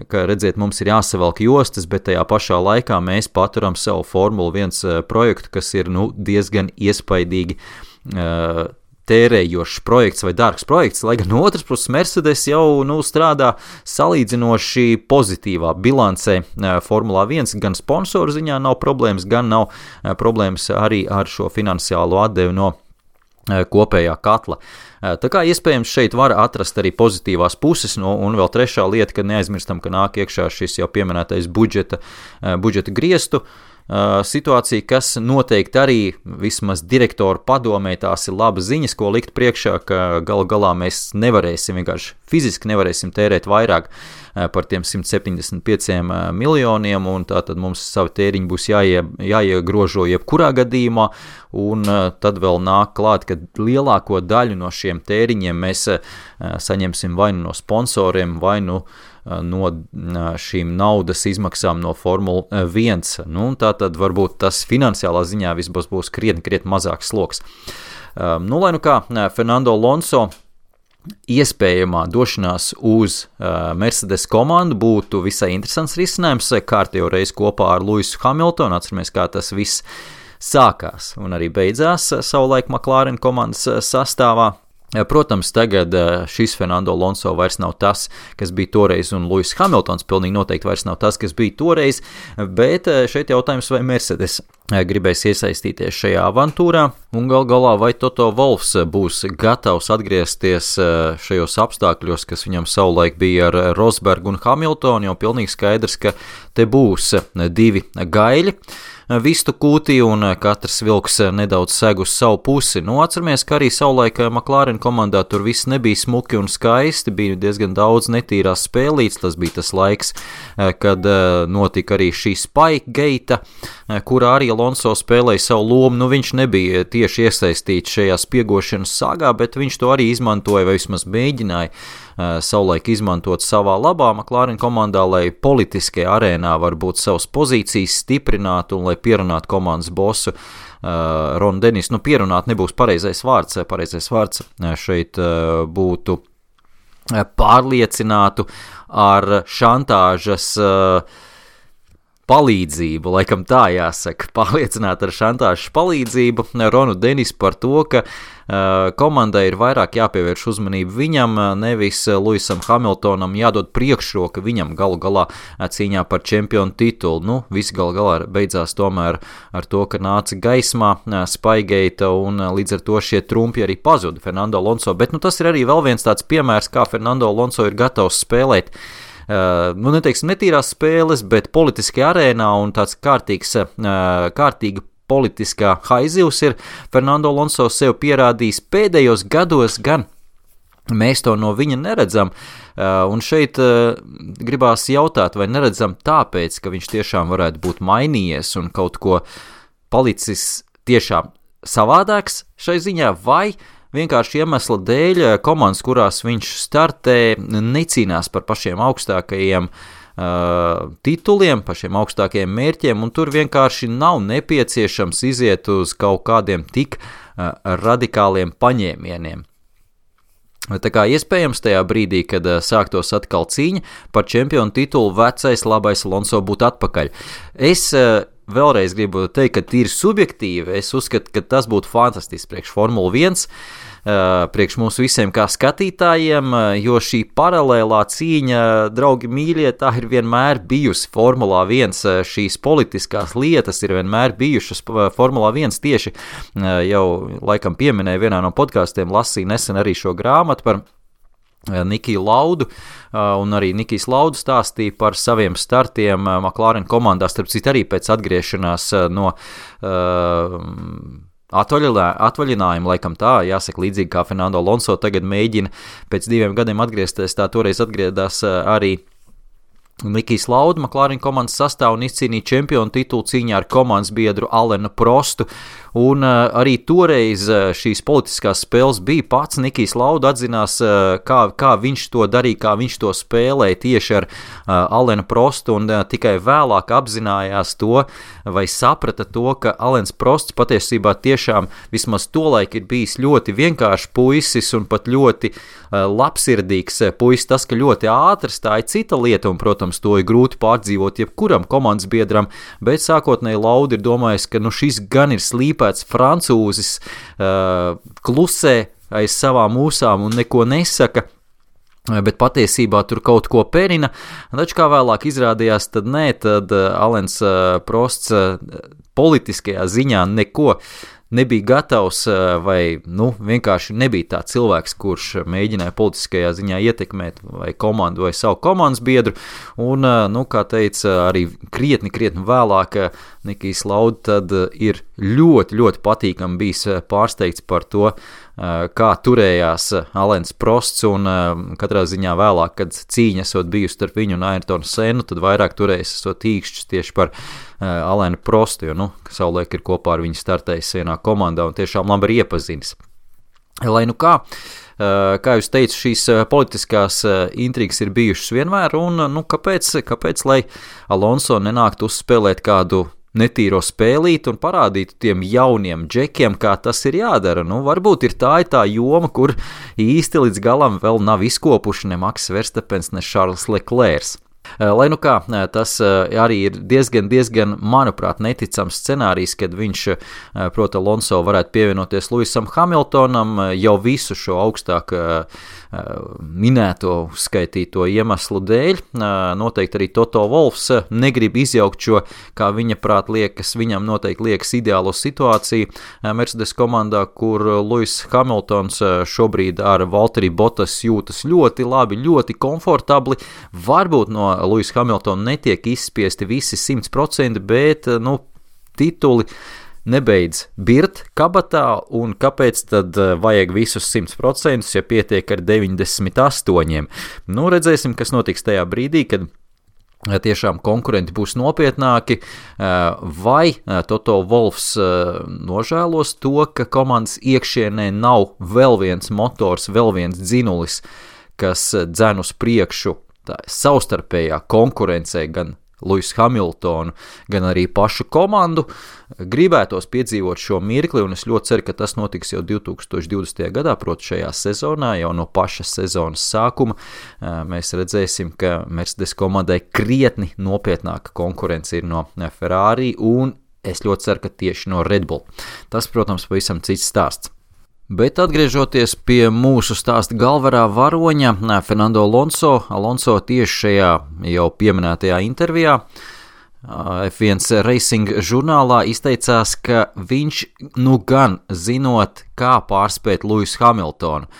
ka, redziet, mums ir jāsavelk jostas, bet tajā pašā laikā mēs paturam savu Formula 1 projektu, kas ir diezgan iespaidīgi tērējošs projekts vai dārgs projekts, lai gan no otras puses Mercedes jau strādā salīdzinoši pozitīvā bilancē Formulā 1, gan sponsoru ziņā nav problēmas, gan nav problēmas arī ar šo finansiālo atdevi no kopējā katla. Tā kā iespējams šeit var atrast arī pozitīvās puses, un vēl trešā lieta, ka neaizmirstam, ka nāk iekšā šis jau pieminētais budžeta griestu situācija, kas noteikti arī vismaz direktoru padomē tās ir labas ziņas, ko likt priekšā, ka galu galā mēs nevarēsim, vienkārši fiziski nevarēsim tērēt vairāk par tiem 175 miljoniem, un tātad mums savi tēriņi būs jāiegrožo jebkurā gadījumā, un tad vēl nāk klāt, ka lielāko daļu no šiem tēriņiem mēs saņemsim vai no sponsoriem, vai no šīm naudas izmaksām no Formula 1. Tātad varbūt tas finansiālā ziņā visbos būs krietni mazāks sloks. Lai kā Fernando Alonso iespējamā došanās uz Mercedes komandu būtu visai interesants risinājums, kārtējo reizi kopā ar Lewisu Hamiltonu, atceramies, kā tas viss sākās un arī beidzās savulaik McLaren komandas sastāvā. Protams, tagad šis Fernando Alonso vairs nav tas, kas bija toreiz, un Lewis Hamiltons pilnīgi noteikti vairs nav tas, kas bija toreiz, bet šeit jautājums, vai Mercedes gribēs iesaistīties šajā avantūrā, un galā vai Toto Wolffs būs gatavs atgriezties šajos apstākļos, kas viņam savulaik bija ar Rosbergu un Hamiltonu, jo pilnīgi skaidrs, ka te būs 2 gaļi vistu kūtī, un katrs vilks nedaudz seg uz savu pusi. Atceramies, ka arī savulaik McLaren komandā tur viss nebija smuki un skaisti, bija diezgan daudz netīrās spēlītes, tas bija tas laiks, kad notika arī šī Spikegate, kurā arī Alonso spēlēja savu lomu, viņš nebija tieši iesaistīts šajā spiegošanas sagā, bet viņš to arī izmantoja, vai vismaz mēģināja savulaik izmantot savā labā McLaren komandā, lai politiskajā arēnā varbūt savas pozīcijas stiprinātu un lai pierunātu komandas bosu Ronu Denisu. Pierunāt nebūs pareizais vārds šeit būtu pārliecinātu ar šantāžas palīdzību, laikam tā jāsaka, pārliecināt ar šantāžas palīdzību Ronu Denisu par to, ka komandai ir vairāk jāpievērš uzmanību viņam, nevis Lewisam Hamiltonam jādod priekšroka viņam galu galā cīņā par čempionu titulu. Viss galu galā beidzās tomēr ar to, ka nāca gaismā Spikegate, un līdz ar to šie trumpi arī pazuda Fernando Alonso, bet tas ir arī vēl viens tāds piemērs, kā Fernando Alonso ir gatavs spēlēt neteiksim netīrās spēles, bet politiskajā arēnā, un tāds kārtīga politiskā haizivs ir Fernando Alonso sev pierādījis pēdējos gados, gan mēs to no viņa neredzam, un šeit gribās jautāt, vai neredzam tāpēc, ka viņš tiešām varētu būt mainījies un kaut ko palicis tiešām savādāks šai ziņā, vai vienkārši iemesla dēļ komandas, kurās viņš startē, necīnās par pašiem augstākajiem tituliem, pašiem augstākajiem mērķiem, un tur vienkārši nav nepieciešams iziet uz kaut kādiem tik radikāliem paņēmieniem. Tā kā iespējams tajā brīdī, kad sāktos atkal cīņa par čempionu titulu, vecais labais Alonso būtu atpakaļ. Es vēlreiz gribu teikt, ka tīri subjektīvi, es uzskatu, ka tas būtu fantastisks priekš Formula 1, priekš mūsu visiem kā skatītājiem, jo šī paralēlā cīņa, draugi mīļie, tā ir vienmēr bijusi Formulā 1, šīs politiskās lietas ir vienmēr bijušas Formulā 1 tieši, jau laikam pieminēju vienā no podkastiem, lasīju nesen arī šo grāmatu par Nikiju Laudu, un arī Nikijs Laudu stāstīja par saviem startiem McLaren komandā, starp citu arī pēc atgriešanās no atvaļinājumu, laikam tā, jāsaka līdzīgi kā Fernando Alonso tagad mēģina pēc 2 gadiem atgriezties, tā toreiz atgriedās arī Nikijs Lauda, McLaren komandas sastāv un izcīnīja čempionu titulu cīņā ar komandas biedru Alenu Prostu, un arī toreiz šīs politiskās spēles bija pats Nikijs Lauda atzinās, kā viņš to darīja, kā viņš to spēlēja tieši ar Alenu Prostu, un tikai vēlāk apzinājās to, vai saprata to, ka Alens Prosts patiesībā tiešām vismaz tolaik ir bijis ļoti vienkāršs puisis un pat ļoti labsirdīgs puisis. Tas, ka ļoti ātrs, tā ir cita lieta, un, protams, to ir grūti pārdzīvot jebkuram komandas biedram, bet sākotnēji Lauda ir domājis, ka šis gan ir slīpēts francūzis, klusē aiz savām ūsām un neko nesaka, bet patiesībā tur kaut ko perina, taču kā vēlāk izrādījās, tad nē, tad Alens Prosts politiskajā ziņā neko nebija gatavs vai vienkārši nebija tā cilvēks, kurš mēģināja politiskajā ziņā ietekmēt vai komandu vai savu komandas biedru, un, kā teica, arī krietni vēlāk Nikijs Lauda tad ir ļoti, ļoti patīkami bijis pārsteigts par to, kā turējās Alens Prosts, un katrā ziņā vēlāk, kad cīņa esot bijusi starp viņu un Ayrtonu Sennu, tad vairāk turējis esot īkšķis tieši par Alenu Prostu, jo, savulaik ir kopā ar viņu startējis vienā komandā un tiešām labi ir iepazinis. Lai kā jūs teicu, šīs politiskās intrigas ir bijušas vienmēr, un kāpēc, lai Alonso nenāktu uzspēlēt kādu netīro spēlīt un parādītu tiem jauniem džekiem, kā tas ir jādara. Varbūt ir tā joma, kur īsti līdz galam vēl nav izkopuši ne Max Verstappens, ne Charles Leclerc. Lai kā, tas arī ir diezgan, manuprāt, neticams scenārijs, kad viņš, proti, Alonso varētu pievienoties Lewisam Hamiltonam jau visu šo augstāk minēto skaitīto iemeslu dēļ. Noteikti arī Toto Wolffs negrib izjaukt šo, kā viņa prāt viņam noteikti liekas ideālo situāciju Mercedes komandā, kur Lewis Hamiltons šobrīd ar Valtteri Bottas jūtas ļoti labi, ļoti komfortabli. Varbūt no Lewis Hamiltona netiek izspiesti visi 100%, bet, tituli nebeidz birt kabatā, un kāpēc tad vajag visus 100%, ja pietiek ar 98%? Redzēsim, kas notiks tajā brīdī, kad tiešām konkurenti būs nopietnāki, vai Toto Wolffs nožēlos to, ka komandas iekšienē nav vēl viens motors, vēl viens dzinulis, kas dzen uz priekšu savstarpējā konkurencē gan Lewis Hamiltonu, gan arī pašu komandu. Gribētos piedzīvot šo mirkli, un es ļoti ceru, ka tas notiks jau 2020. gadā, proti šajā sezonā, jau no paša sezonas sākuma. Mēs redzēsim, ka Mercedes komandai krietni nopietnāka konkurence ir no Ferrari, un es ļoti ceru, ka tieši no Red Bull. Tas, protams, pavisam cits stāsts. Bet atgriežoties pie mūsu stāsta galvenā varoņa, Fernando Alonso tieši šajā jau pieminētajā intervijā F1 Racing žurnālā izteicās, ka viņš gan zinot, kā pārspēt Lewisu Hamiltonu.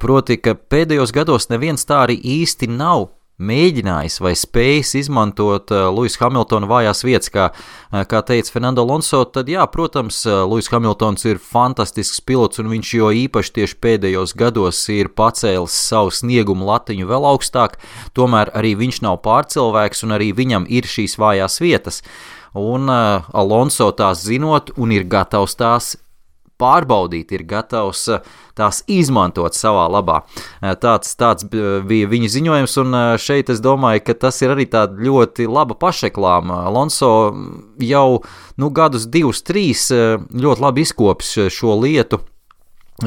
Proti, ka pēdējos gados neviens tā arī īsti nav mēģinājis vai spējis izmantot Lewis Hamiltona vājās vietas, kā teica Fernando Alonso, tad jā, protams, Lewis Hamiltons ir fantastisks pilots, un viņš jo īpaši tieši pēdējos gados ir pacēlis savu sniegumu latiņu vēl augstāk, tomēr arī viņš nav pārcilvēks, un arī viņam ir šīs vājās vietas. un Alonso tās zinot un ir gatavs tās pārbaudīt, ir gatavs tās izmantot savā labā. Tāds bija viņa ziņojums, un šeit es domāju, ka tas ir arī tāda ļoti laba pašreklāma. Alonso jau gadus 2-3 ļoti labi izkopis šo lietu,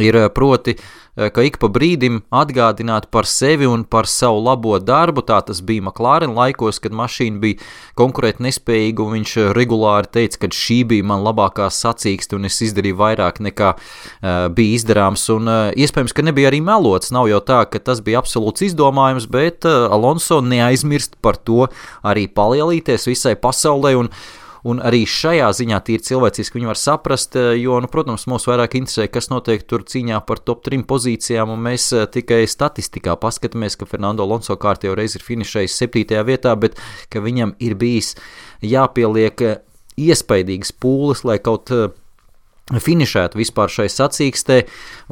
ir proti, ka ik pa brīdim atgādināt par sevi un par savu labo darbu. Tā tas bija McLaren laikos, kad mašīna bija konkurēt nespējīga, un viņš regulāri teica, ka šī bija man labākā sacīkste un es izdarīju vairāk nekā bija izdarāms, un iespējams, ka nebija arī melots. Nav jau tā, ka tas bija absolūts izdomājums, bet Alonso neaizmirst par to arī palielīties visai pasaulē, un arī šajā ziņā tīri cilvēciski viņi var saprast, jo, protams, mūs vairāk interesē, kas notiek tur cīņā par top 3 pozīcijām, un mēs tikai statistikā paskatāmies, ka Fernando Alonso kārtējo reizi ir finišējis 7. vietā, bet ka viņam ir bijis jāpieliek iespaidīgas pūles, lai kaut finišētu vispār šai sacīkstē,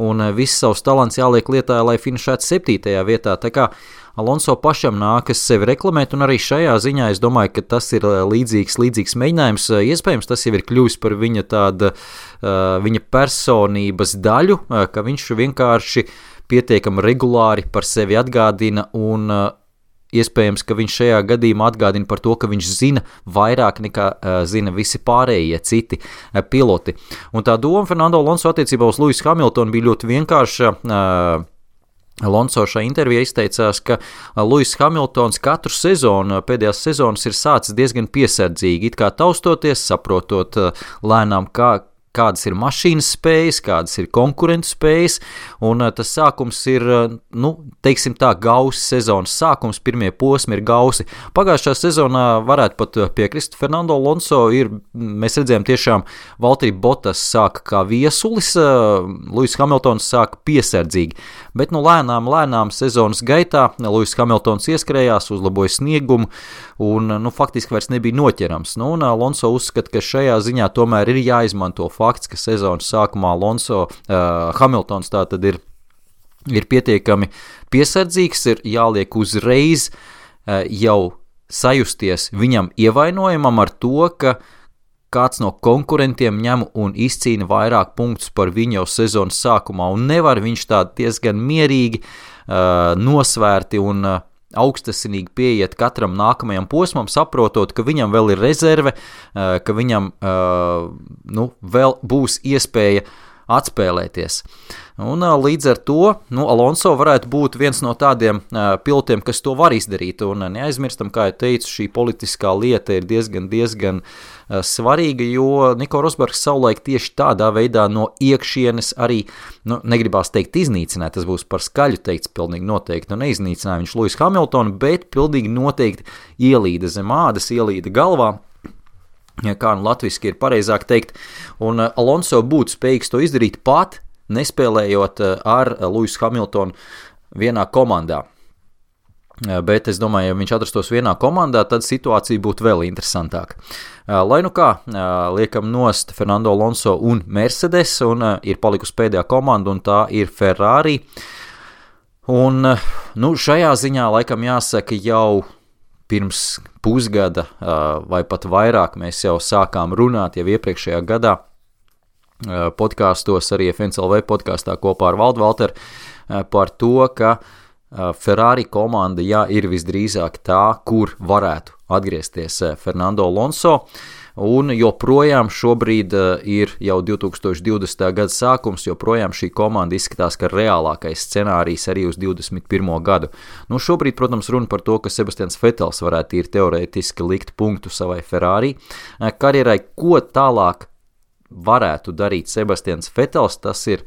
un viss savs talants jāliek lietā, lai finišētu 7. vietā. Tā kā Alonso pašam nākas sevi reklamēt, un arī šajā ziņā es domāju, ka tas ir līdzīgs mēģinājums. Iespējams, tas jau ir kļuvis par viņa personības daļu, ka viņš vienkārši pietiekami regulāri par sevi atgādina, un iespējams, ka viņš šajā gadījumā atgādina par to, ka viņš zina vairāk nekā zina visi pārējie citi piloti. Un tā doma Fernando Alonso attiecībā uz Lewisu Hamiltonu bija ļoti vienkārša. Alonso šajā intervijā izteicās, ka Lewis Hamiltons katru sezonu, pēdējās sezonas ir sācis diezgan piesardzīgi, it kā taustoties, saprotot lēnām, kādas ir mašīnas spējas, kādas ir konkurentu spējas, un tas sākums ir, teiksim tā, gausi sezonas sākums, pirmie posmi ir gausi. Pagājušā sezonā varētu pat piekrist Fernando Alonso, mēs redzējām tiešām Valtteri Bottas sāka kā viesulis, Lewis Hamiltons sāka piesardzīgi, bet lēnām sezonas gaitā Lewis Hamiltons ieskrējās, uzlaboja sniegumu, un faktiski vairs nebija noķerams. Un Alonso uzskata, ka šajā ziņā tomēr ir jāizmanto fakts, ka sezonas sākumā Hamiltons tātad ir pietiekami piesardzīgs, ir jāliek uzreiz jau sajusties viņam ievainojumam ar to, ka kāds no konkurentiem ņem un izcīna vairāk punktus par viņu jau sezonas sākumā, un nevar viņš tā diezgan mierīgi, nosvērti un augstasinīgi pieiet katram nākamajam posmam, saprotot, ka viņam vēl ir rezerve, ka viņam vēl būs iespēja atspēlēties. Un līdz ar to Alonso varētu būt viens no tādiem pilotiem, kas to var izdarīt, un neaizmirstam, kā jau teicu, šī politiskā lieta ir diezgan svarīga, jo Nico Rosbergs savulaik tieši tādā veidā no iekšienes arī, negribās teikt iznīcināt, tas būs par skaļu teikts pilnīgi noteikti, neiznīcināja viņš Lewis Hamiltonu, bet pilnīgi noteikti ielīda zem ādas, ielīda galvā, kā latviski ir pareizāk teikt, un Alonso būtu spējīgs to izdarīt pat, nespēlējot ar Lewisu Hamiltonu vienā komandā. Bet es domāju, ja viņš atrastos vienā komandā, tad situācija būtu vēl interesantāka. Lai kā, liekam nost Fernando Alonso un Mercedes, un ir palikusi pēdējā komanda, un tā ir Ferrari. Un šajā ziņā laikam jāsaka jau pirms pusgada vai pat vairāk mēs jau sākām runāt jau iepriekšējā gadā podkāstos, arī FNCLV podkāstā kopā ar Valdu Valteru par to, ka Ferrari komanda ir visdrīzāk tā, kur varētu atgriezties Fernando Alonso, un joprojām šobrīd ir jau 2020. gada sākums, joprojām šī komanda izskatās, ka reālākais scenārijs arī uz 21. gadu. Šobrīd, protams, runa par to, ka Sebastians Vettels varētu ir teorētiski likt punktu savai Ferrari karjerai, ko tālāk varētu darīt Sebastians Vettels, tas ir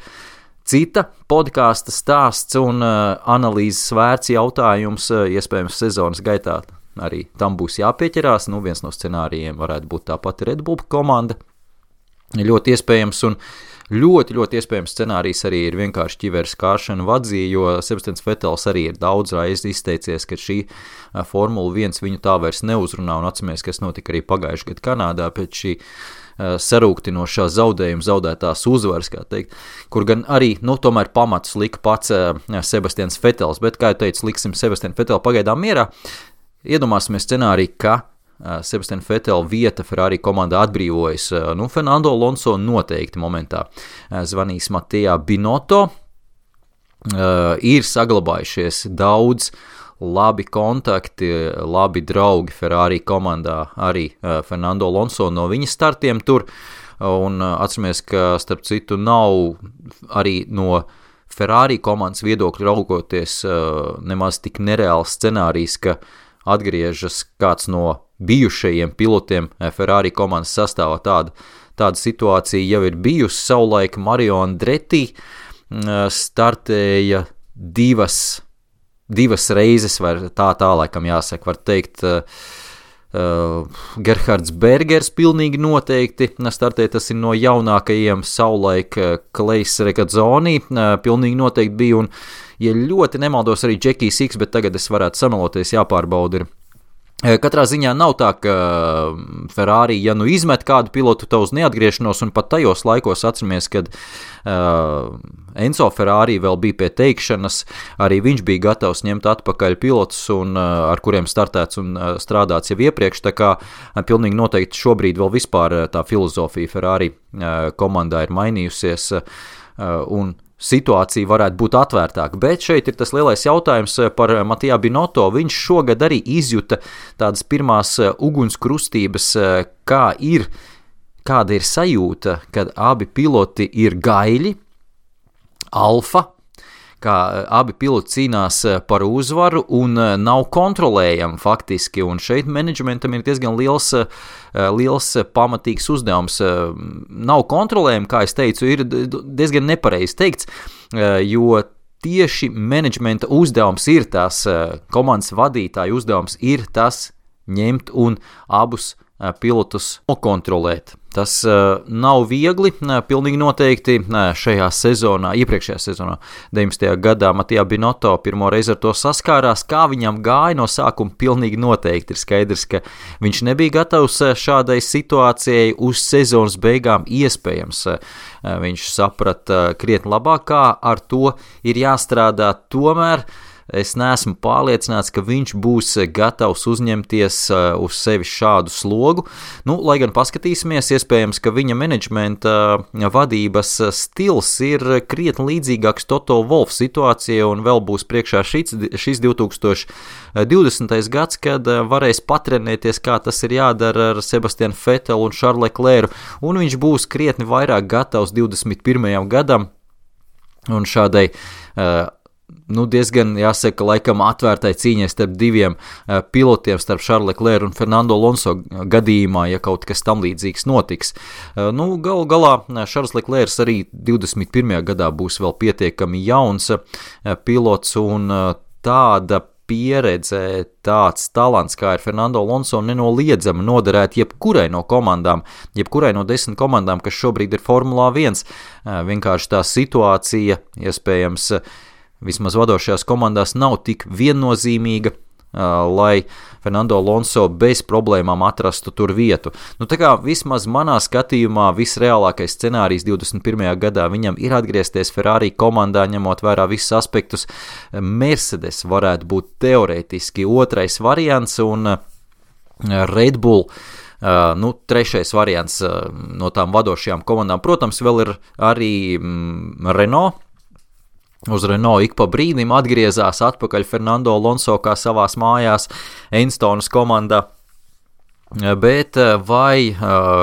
cita podkāsta stāsts un analīzes vērts jautājums, iespējams sezonas gaitā arī tam būs jāpieķerās, viens no scenārijiem varētu būt tāpat Red Bull komanda, ļoti iespējams, un ļoti iespējams scenārijs arī ir vienkārši ķiveres kāršana vadzī, jo Sebastians Vettels arī ir daudz reizi izteicies, ka šī Formula 1 viņu tā vairs neuzrunā, un atceramies, kas notika arī pagājušajā gadā Kanādā pēc šī sarūktinošā zaudējuma, zaudētās uzvaras, kā teikt, kur gan arī, tomēr pamatus lika pats Sebastians Vettels, bet, kā jau teicu, liksim Sebastianu Vettelu pagaidām mierā. Iedomāsimies scenāriju, ka Sebastiana Vetela vieta Ferrari komandā atbrīvojas. Fernando Alonso noteikti momentā zvanīs Mattia Binotto. Ir saglabājušies daudz labi kontakti, labi draugi Ferrari komandā, arī Fernando Alonso no viņa startiem tur, un atceramies, ka starp citu nav arī no Ferrari komandas viedokļu raugoties nemaz tik nereāls scenārijs, ka atgriežas kāds no bijušajiem pilotiem Ferrari komandas sastāvā. Tāda situācija jau ir bijusi. Savulaik Mario Andretti startēja divas reizes, vai tā laikam jāsaka, var teikt, Gerhards Bergers pilnīgi noteikti startēja, tas ir no jaunākajiem, savulaik Klejs Regazzoni pilnīgi noteikti bija, un, ja ļoti nemaldos, arī Jackie Six, bet tagad es varētu sameloties, jāpārbauda ir. Katrā ziņā nav tā, ka Ferrari, ja izmet kādu pilotu tā uz neatgriešanos, un pat tajos laikos atceramies, kad Enzo Ferrari vēl bija pie teikšanas, arī viņš bija gatavs ņemt atpakaļ pilotus, un ar kuriem startēts un strādāts jau iepriekš, tā kā pilnīgi noteikti šobrīd vēl vispār tā filozofija Ferrari komandā ir mainījusies, un situācija varētu būt atvērtāka, bet šeit ir tas lielais jautājums par Mattia Binotto. Viņš šogad arī izjuta tādas pirmās ugunskrustības, kāda ir sajūta, kad abi piloti ir gaiļi, alfa, kā abi piloti cīnās par uzvaru un nav kontrolējami faktiski, un šeit menedžmentam ir diezgan liels pamatīgs uzdevums. Nav kontrolējami, kā es teicu, ir diezgan nepareizi teikts, jo tieši menedžmenta uzdevums ir tas, komandas vadītāja uzdevums ir tas ņemt un abus pilotus nokontrolēt. Tas nav viegli, pilnīgi noteikti šajā sezonā, iepriekšējā sezonā, 19. gadā Mattia Binotto pirmo reizi ar to saskārās, kā viņam gāja no sākuma, pilnīgi noteikti ir skaidrs, ka viņš nebija gatavs šādai situācijai uz sezonas beigām iespējams. Viņš saprata krietni labāk, kā ar to ir jāstrādā, tomēr es neesmu pārliecināts, ka viņš būs gatavs uzņemties uz sevi šādu slogu. Lai gan paskatīsimies, iespējams, ka viņa menedžmenta vadības stils ir krietni līdzīgāks Toto Wolff situācijai, un vēl būs priekšā šis 2020. gads, kad varēs patrenēties, kā tas ir jādara ar Sebastianu Vetelu un Charlesu Leclercu, un viņš būs krietni vairāk gatavs 21. gadam, un šādai diezgan, jāsaka, laikam atvērtai cīņai starp diviem pilotiem, starp Charlesu Leclercu un Fernando Alonso gadījumā, ja kaut kas tam līdzīgs notiks. Galu galā Charles Leclerc arī 21. gadā būs vēl pietiekami jauns pilots, un tāda pieredze, tāds talants, kā ir Fernando Alonso, nenoliedzami noderēt jebkurai no komandām, jebkurai no 10 komandām, kas šobrīd ir Formulā 1. Vienkārši tā situācija, iespējams, vismaz vadošajās komandās nav tik viennozīmīga, lai Fernando Alonso bez problēmām atrastu tur vietu. Tā kā vismaz manā skatījumā visreālākais scenārijs 21. gadā viņam ir atgriezties Ferrari komandā, ņemot vērā visus aspektus. Mercedes varētu būt teorētiski otrais variants, un Red Bull trešais variants no tām vadošajām komandām. Protams, vēl ir arī Renault. Uz Renault ik pa brīdim atgriezās atpakaļ Fernando Alonso kā savās mājās Enstonas komandā, bet vai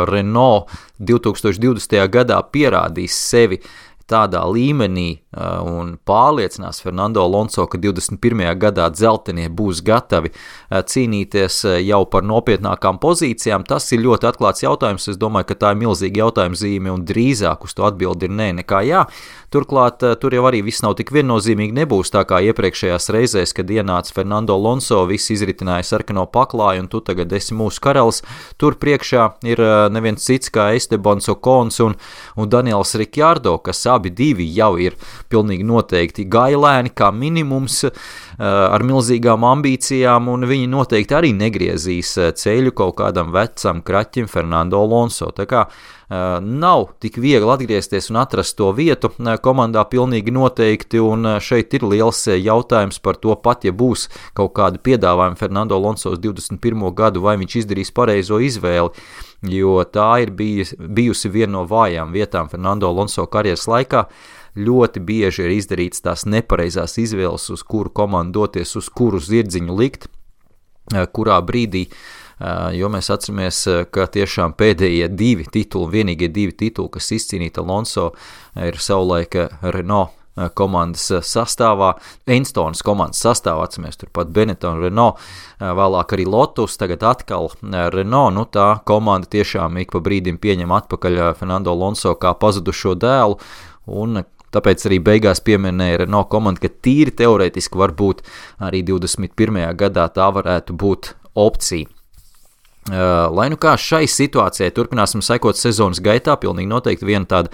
Renault 2020. gadā pierādīs sevi tādā līmenī un pārliecinās Fernando Alonso, ka 21. gadā dzeltenie būs gatavi cīnīties jau par nopietnākām pozīcijām, tas ir ļoti atklāts jautājums. Es domāju, ka tā ir milzīga jautājuma zīme, un drīzāk uz to atbildi ir nē nekā jā. Turklāt tur jau arī viss nav tik viennozīmīgi, nebūs tā kā iepriekšējās reizēs, kad ienāca Fernando Alonso, viss izritināja sarkano paklāju, un tu tagad esi mūsu karalis. Tur priekšā ir neviens cits kā Estebans Ocons un Daniels Ricciardo, kas abi divi jau ir pilnīgi noteikti gailēni kā minimums ar milzīgām ambīcijām, un viņi noteikti arī negriezīs ceļu kaut kādam vecam kraķim Fernando Alonso. Tā kā Nav tik viegli atgriezties un atrast to vietu komandā pilnīgi noteikti, un šeit ir liels jautājums par to pat, ja būs kaut kādi piedāvājumi Fernando Alonso uz 21. gadu, vai viņš izdarīs pareizo izvēli, jo tā ir bijusi viena no vājām vietām Fernando Alonso karjeras laikā. Ļoti bieži ir izdarīts tās nepareizās izvēles, uz kuru komandu doties, uz kuru zirdziņu likt, kurā brīdī, jo mēs atceramies, ka tiešām pēdējie vienīgie divi tituli, kas izcīnīta Alonso, ir savulaik Renault komandas sastāvā, Enstonas komandas sastāvā, atceramies turpat Benetton, Renault, vēlāk arī Lotus, tagad atkal Renault, tā komanda tiešām ik pa brīdim pieņem atpakaļ Fernando Alonso kā pazudušo dēlu, un tāpēc arī beigās pieminēja Renault komanda, ka tīri teorētiski varbūt arī 21. gadā tā varētu būt opcija. Lai nu kā šai situācijai turpināsim sekot sezonas gaitā, pilnīgi noteikti viena tāda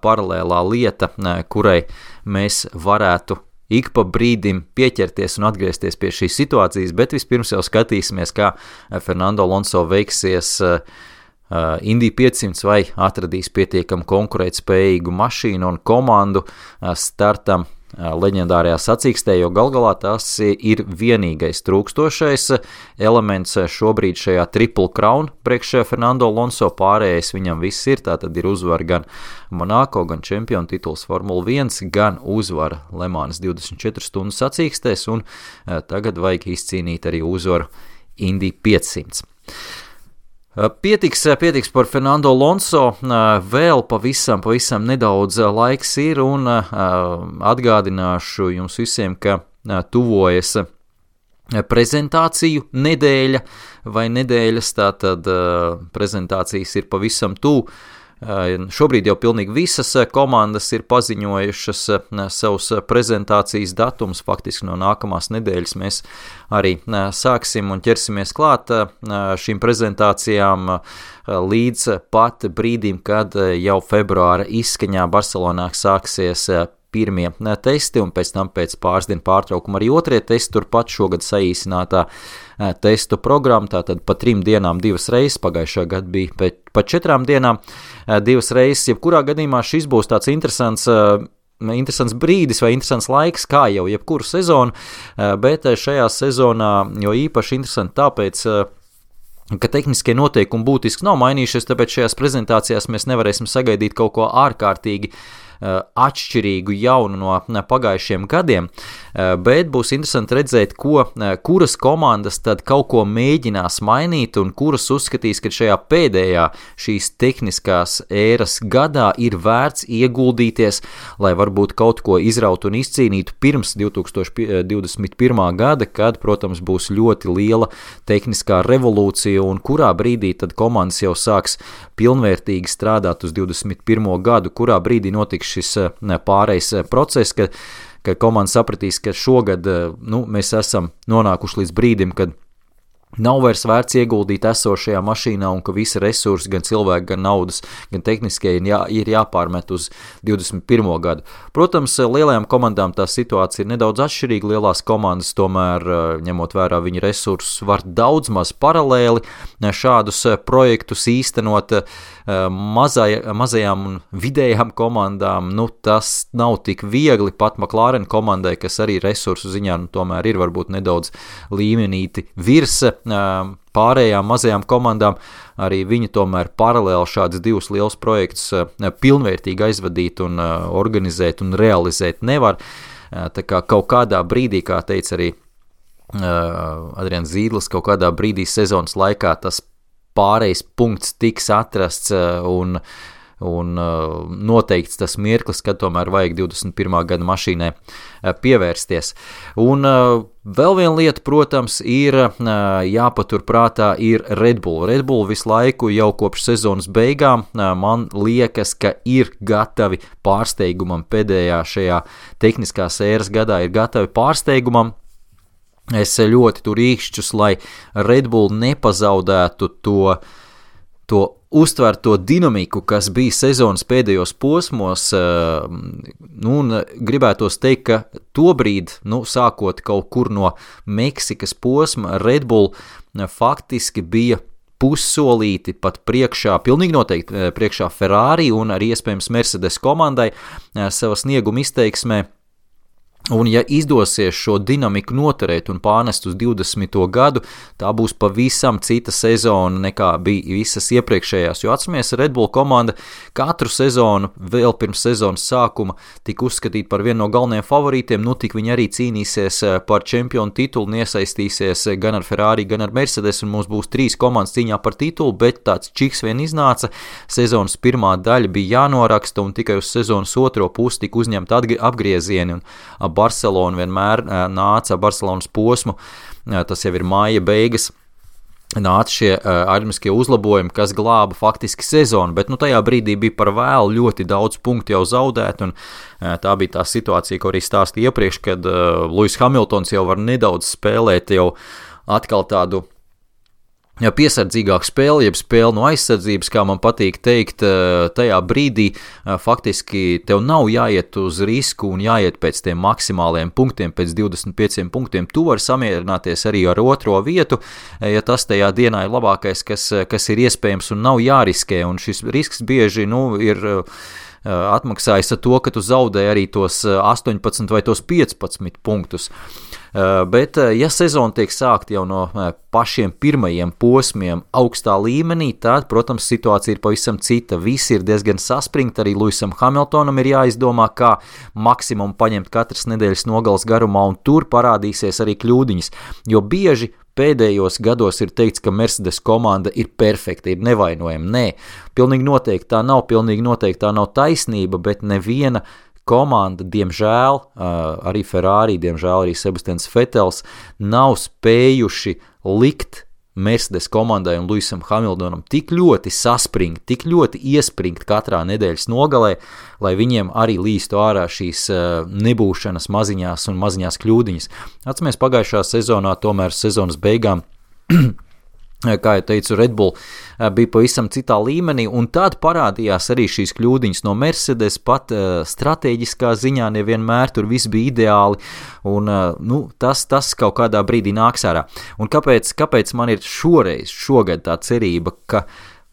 paralēlā lieta, kurai mēs varētu ik pa brīdim pieķerties un atgriezties pie šīs situācijas, bet vispirms jau skatīsimies, kā Fernando Alonso veiksies Indy 500 vai atradīs pietiekam konkurētspējīgu mašīnu un komandu startam leģendārajā sacīkstē, jo galgalā tas ir vienīgais trūkstošais elements šobrīd šajā Triple Crown priekš Fernando Alonso, pārējais viņam viss ir, tātad ir uzvara gan Monaco, gan čempionu tituls Formula 1, gan uzvara Le Mans 24 stundu sacīkstēs, un tagad vajag izcīnīt arī uzvaru Indy 500. Pietiks par Fernando Alonso, vēl pavisam nedaudz laiks ir, un atgādināšu jums visiem, ka tuvojas prezentāciju nedēļa vai nedēļas, tātad prezentācijas ir pavisam tuvu. Šobrīd jau pilnīgi visas komandas ir paziņojušas savus prezentācijas datumus, faktiski no nākamās nedēļas mēs arī sāksim un ķersimies klāt šīm prezentācijām līdz pat brīdim, kad jau februāra izskaņā Barcelonā sāksies pirmie testi, un pēc tam pēc pāris dienu pārtraukuma arī otrie testi, turpat šogad saīsinātā testu programma, tātad pa 3 dienām 2 reizes, pagājušā gada bija pa 4 dienām 2 reizes, jebkurā gadījumā šis būs tāds interesants brīdis vai interesants laiks, kā jau jebkuru sezonu, bet šajā sezonā jo īpaši interesanti tāpēc, ka tehniskie noteikumi būtiski nav mainījušies, tāpēc šajās prezentācijās mēs nevarēsim sagaidīt kaut ko ārkārtīgi atšķirīgu jaunu no pagājušiem gadiem, bet būs interesanti redzēt, kuras komandas tad kaut ko mēģinās mainīt un kuras uzskatīs, ka šajā pēdējā šīs tehniskās ēras gadā ir vērts ieguldīties, lai varbūt kaut ko izraut un izcīnītu pirms 2021. gada, kad, protams, būs ļoti liela tehniskā revolūcija un kurā brīdī tad komandas jau sāks pilnvērtīgi strādāt uz 21. gadu, kurā brīdī notiks šis pārejas process, ka komanda sapratīs, ka šogad mēs esam nonākuši līdz brīdim, kad nav vairs vērts ieguldīt esošajā mašīnā un ka visi resursi, gan cilvēki, gan naudas, gan tehniskie ir jāpārmet uz 21. gadu. Protams, lielajām komandām tā situācija ir nedaudz atšķirīga. Lielās komandas tomēr, ņemot vērā viņu resursus, var daudz maz paralēli šādus projektus īstenot. Mazajām un vidējām komandām, tas nav tik viegli, pat McLaren komandai, kas arī resursu ziņā tomēr ir varbūt nedaudz līmenīti virs pārējām mazajām komandām, arī viņi tomēr paralēli šādus 2 lielus projektus pilnvērtīgi aizvadīt un organizēt un realizēt nevar. Tā kā kaut kādā brīdī, kā teica arī Adrians Zīdlis, kaut kādā brīdī sezonas laikā tas pārējais punkts tiks atrasts un noteikts tas mirklis, kad tomēr vajag 21. gada mašīnai pievērsties. Un vēl viena lieta, protams, ir jāpaturprātā ir Red Bull. Red Bull visu laiku jau kopš sezonas beigām man liekas, ka ir gatavi pārsteigumam pēdējā šajā tehniskās ēras gadā, ir gatavi pārsteigumam. Es ļoti tur īkšķus, lai Red Bull nepazaudētu to uztverto dinamiku, kas bija sezonas pēdējos posmos, un gribētos teikt, ka tobrīd, sākot kaut kur no Meksikas posma, Red Bull faktiski bija pussolīti pat priekšā, pilnīgi noteikti priekšā Ferrari un arī iespējams Mercedes komandai savas snieguma izteiksmē. Un ja izdosies šo dinamiku noturēt un pārnest uz 20. gadu, tā būs pavisam cita sezona nekā bija visas iepriekšējās, jo atceramies, Red Bull komanda katru sezonu vēl pirms sezonas sākuma tika uzskatīta par vienu no galvenajiem favorītiem, tik viņi arī cīnīsies par čempionu titulu un iesaistīsies gan ar Ferrari, gan ar Mercedes, un mums būs 3 komandas cīņā par titulu, bet tāds čiks vien iznāca, sezonas pirmā daļa bija jānoraksta un tikai uz sezonas otro pusi tika uzņemta apgriezieni, un Barcelona vienmēr nāca Barcelonas posmu, tas jau ir māja beigas, nāca šie aerodinamiskie uzlabojumi, kas glāba faktiski sezonu, bet tajā brīdī bija par vēlu ļoti daudz punktu jau zaudēt, un tā bija tā situācija, ko arī stāstīja iepriekš, kad Lewis Hamiltons jau var nedaudz spēlēt jau atkal tādu piesardzīgāk spēli, jeb spēli no aizsardzības, kā man patīk teikt, tajā brīdī faktiski tev nav jāiet uz risku un jāiet pēc tiem maksimāliem punktiem, pēc 25 punktiem. Tu vari samierināties arī ar otro vietu, ja tas tajā dienā ir labākais, kas ir iespējams un nav jāriskē, un šis risks bieži ir atmaksājis ar to, ka tu zaudēji arī tos 18 vai tos 15 punktus. Bet, ja sezona tiek sākta jau no pašiem pirmajiem posmiem augstā līmenī, tad, protams, situācija ir pavisam cita. Visi ir diezgan saspringti, arī Lewisam Hamiltonam ir jāizdomā, kā maksimumu paņemt katras nedēļas nogales garumā, un tur parādīsies arī kļūdiņas, jo bieži pēdējos gados ir teikts, ka Mercedes komanda ir perfekta, ir nevainojama. Nē, pilnīgi noteikti tā nav, pilnīgi noteikti tā nav taisnība, bet neviena komanda, diemžēl, arī Ferrari, diemžēl arī Sebastians Vettels, nav spējuši likt Mercedes komandai un Lewisam Hamiltonam tik ļoti saspringt, tik ļoti iespringt katrā nedēļas nogalē, lai viņiem arī līstu ārā šīs nebūšanas maziņās kļūdiņas. Atceramies, pagājušā sezonā, tomēr sezonas beigām, kā jau teicu, Red Bull bija pavisam citā līmenī, un tad parādījās arī šīs kļūdiņas no Mercedes, pat stratēģiskā ziņā nevienmēr tur viss bija ideāli, un tas kaut kādā brīdī nāks ārā. Un kāpēc man ir šogad tā cerība, ka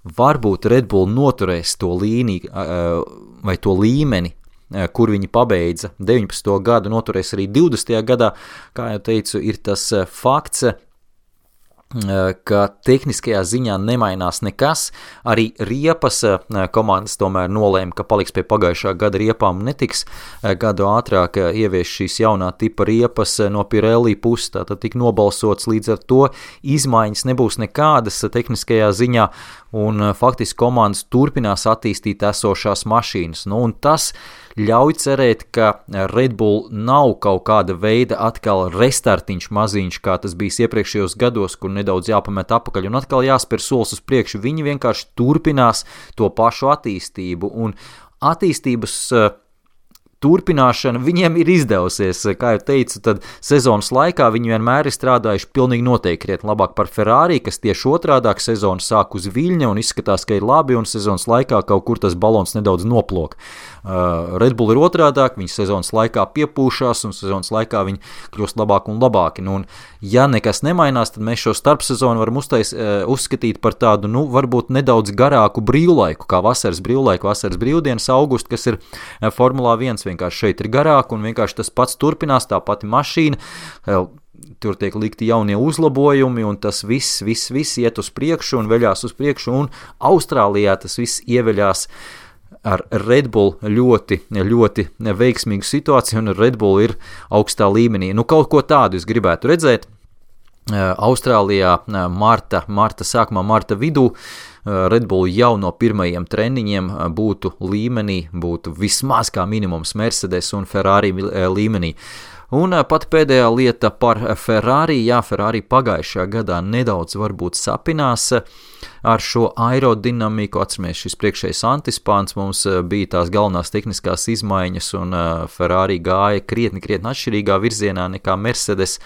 varbūt Red Bull noturēs to līniju vai to līmeni, kur viņi pabeidza 19. gadu, noturēs arī 20. gadā, kā jau teicu, ir tas fakts, ka tehniskajā ziņā nemainās nekas, arī riepas komandas tomēr nolēma, ka paliks pie pagājušā gada riepām un netiks gadu ātrāk ievieš šīs jaunā tipa riepas no Pirelli puses, tātad tik nobalsots, līdz ar to izmaiņas nebūs nekādas tehniskajā ziņā, un faktiski komandas turpinās attīstīt esošās mašīnas, un tas ļauj cerēt, ka Red Bull nav kaut kāda veida atkal restartiņš maziņš, kā tas bijis iepriekšējos gados, kur nedaudz jāpamet apakaļ un atkal jāspēr solis uz priekšu. Viņi vienkārši turpinās to pašu attīstību, un attīstības turpināšana viņiem ir izdevusies. Kā jau teicu, tad sezonas laikā viņi vienmēr ir strādājuši pilnīgi noteikti krietni labāk par Ferrari, kas tieši otrādāk sezonu sāk uz viļņa un izskatās, ka ir labi, un sezonas laikā kaut kur tas balons nedaudz noplok. Red Bull ir otrādāk, viņi sezonas laikā piepūšās, un sezonas laikā viņi kļūst labāki un labāki. Un ja nekas nemainās, tad mēs šo starpsezonu varam uzskatīt par tādu, varbūt nedaudz garāku brīvlaiku, kā vasaras brīvdienas augustu, kas ir Formulā 1. Vienkārši šeit ir garāk, un vienkārši tas pats turpinās, tā pati mašīna, tur tiek likti jaunie uzlabojumi, un tas viss iet uz priekšu un veļās uz priekšu, un Austrālijā tas viss ieveļās ar Red Bull ļoti, ļoti veiksmīgu situāciju, un Red Bull ir augstā līmenī. Kaut ko tādu es gribētu redzēt. Austrālijā marta vidū Red Bull jau no pirmajiem treniņiem būtu līmenī, būtu vismaz kā minimums Mercedes un Ferrari līmenī. Un pat pēdējā lieta par Ferrari, Ferrari pagājušajā gadā nedaudz varbūt sapinās ar šo aerodinamiku, atceramies, šis priekšējais antispāns mums bija tās galvenās tehniskās izmaiņas, un Ferrari gāja krietni atšķirīgā virzienā nekā Mercedes.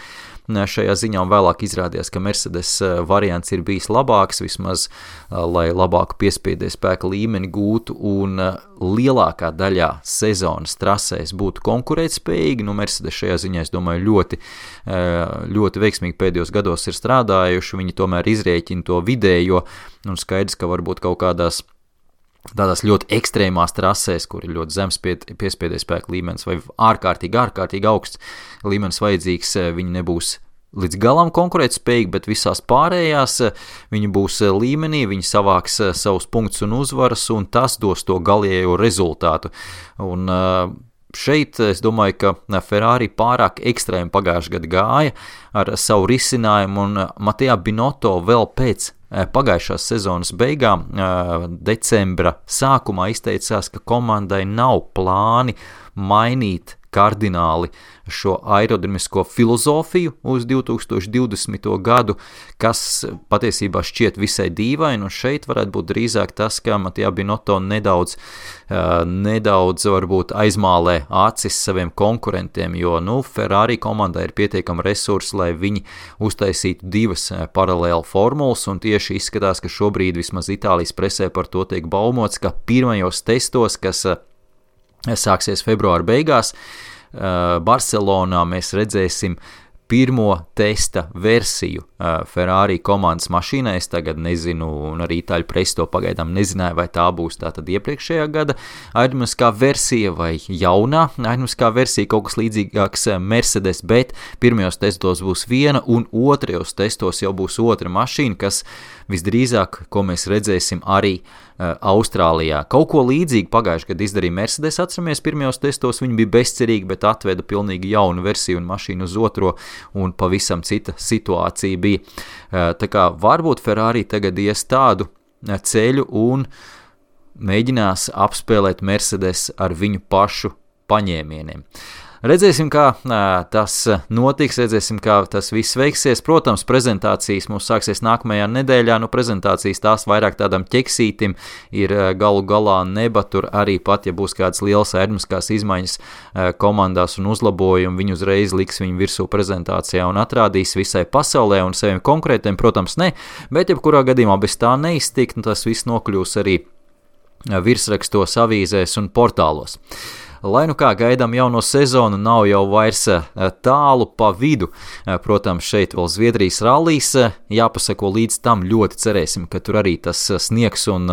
šajā ziņā, un vēlāk izrādījās, ka Mercedes variants ir bijis labāks, vismaz, lai labāku piespiedes spēka līmeni gūtu un lielākā daļā sezonas trasēs būtu konkurētspējīgi. Mercedes šajā ziņā, es domāju, ļoti veiksmīgi pēdējos gados ir strādājuši, viņi tomēr izrēķina to vidējo, un skaidrs, ka varbūt kaut kādās tādās ļoti ekstrēmās trasēs, kur ir ļoti zems piespiedes spēka līmenis vai ārkārtīgi augsts līmenis vajadzīgs, viņi nebūs līdz galam konkurētspējīgi, bet visās pārējās viņi būs līmenī, viņi savāks savus punktus un uzvaras, un tas dos to galējo rezultātu. Un šeit es domāju, ka Ferrari pārāk ekstrēmi pagājušajā gadā gāja ar savu risinājumu, un Mattia Binotto vēl pēc pagājušās sezonas beigām, decembra sākumā izteicās, ka komandai nav plāni mainīt kardināli šo aerodinamisko filozofiju uz 2020. gadu, kas patiesībā šķiet visai dīvaini, un šeit varētu būt drīzāk tas, ka Mattia Binotto nedaudz varbūt aizmālē acis saviem konkurentiem, jo, Ferrari komandai ir pietiekami resursi, lai viņi uztaisītu divas paralēli formulas, un tieši izskatās, ka šobrīd vismaz Itālijas presē par to tiek baumots, ka pirmajos testos, kas sāksies februāra beigās, Barcelonā mēs redzēsim pirmo testa versiju Ferrari komandas mašīnai. Es tagad nezinu, un arī itāļu presi to pagaidām nezināja, vai tā būs tātad iepriekšējā gada aerodinamiskā versija vai jaunā aerodinamiskā versija, kaut kas līdzīgāks Mercedes, bet pirmajos testos būs viena, un otrajos testos jau būs otra mašīna, kas visdrīzāk, ko mēs redzēsim arī Austrālijā. Kaut ko līdzīgi pagājušajā gadā izdarīja Mercedes, atceramies, pirmajos testos viņi bija bezcerīgi, bet atveda pilnīgi jaunu versiju un mašīnu uz otro, un pavisam cita situācija bija. Tā kā varbūt Ferrari tagad ies tādu ceļu un mēģinās apspēlēt Mercedes ar viņu pašu paņēmieniem. Redzēsim, kā tas notiks, redzēsim, kā tas viss veiksies. Protams, prezentācijas mums sāksies nākamajā nedēļā, prezentācijas tās vairāk tādam ķeksītim ir galu galā neba, tur arī pat, ja būs kādas lielas aerodinamiskās izmaiņas komandās un uzlabojumi, viņi uzreiz liks viņu virsū prezentācijā un atrādīs visai pasaulē un saviem konkrētiem, protams, ne, bet jebkurā gadījumā bez tā neiztikt, tas viss nokļūs arī virsrakstos, avīzēs un portālos. Lai kā gaidām jauno sezonu, nav jau vairs tālu pa vidu. Protams, šeit vēl Zviedrijas rallijs, jāpasako līdz tam, ļoti cerēsim, ka tur arī tas sniegs un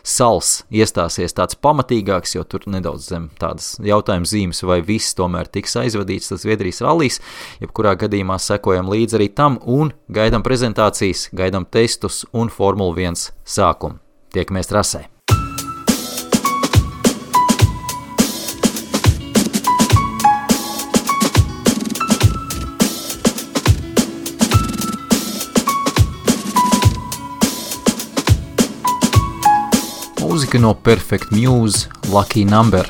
sals iestāsies tāds pamatīgāks, jo tur nedaudz zem tādas jautājuma zīmes, vai viss tomēr tiks aizvadīts tas Zviedrijas rallijs. Jebkurā gadījumā sekojam līdz arī tam un gaidām prezentācijas, gaidām testus un Formula 1 sākumu. Tiekamies trasē! Mūzika no Perfect Muse, Lucky Number.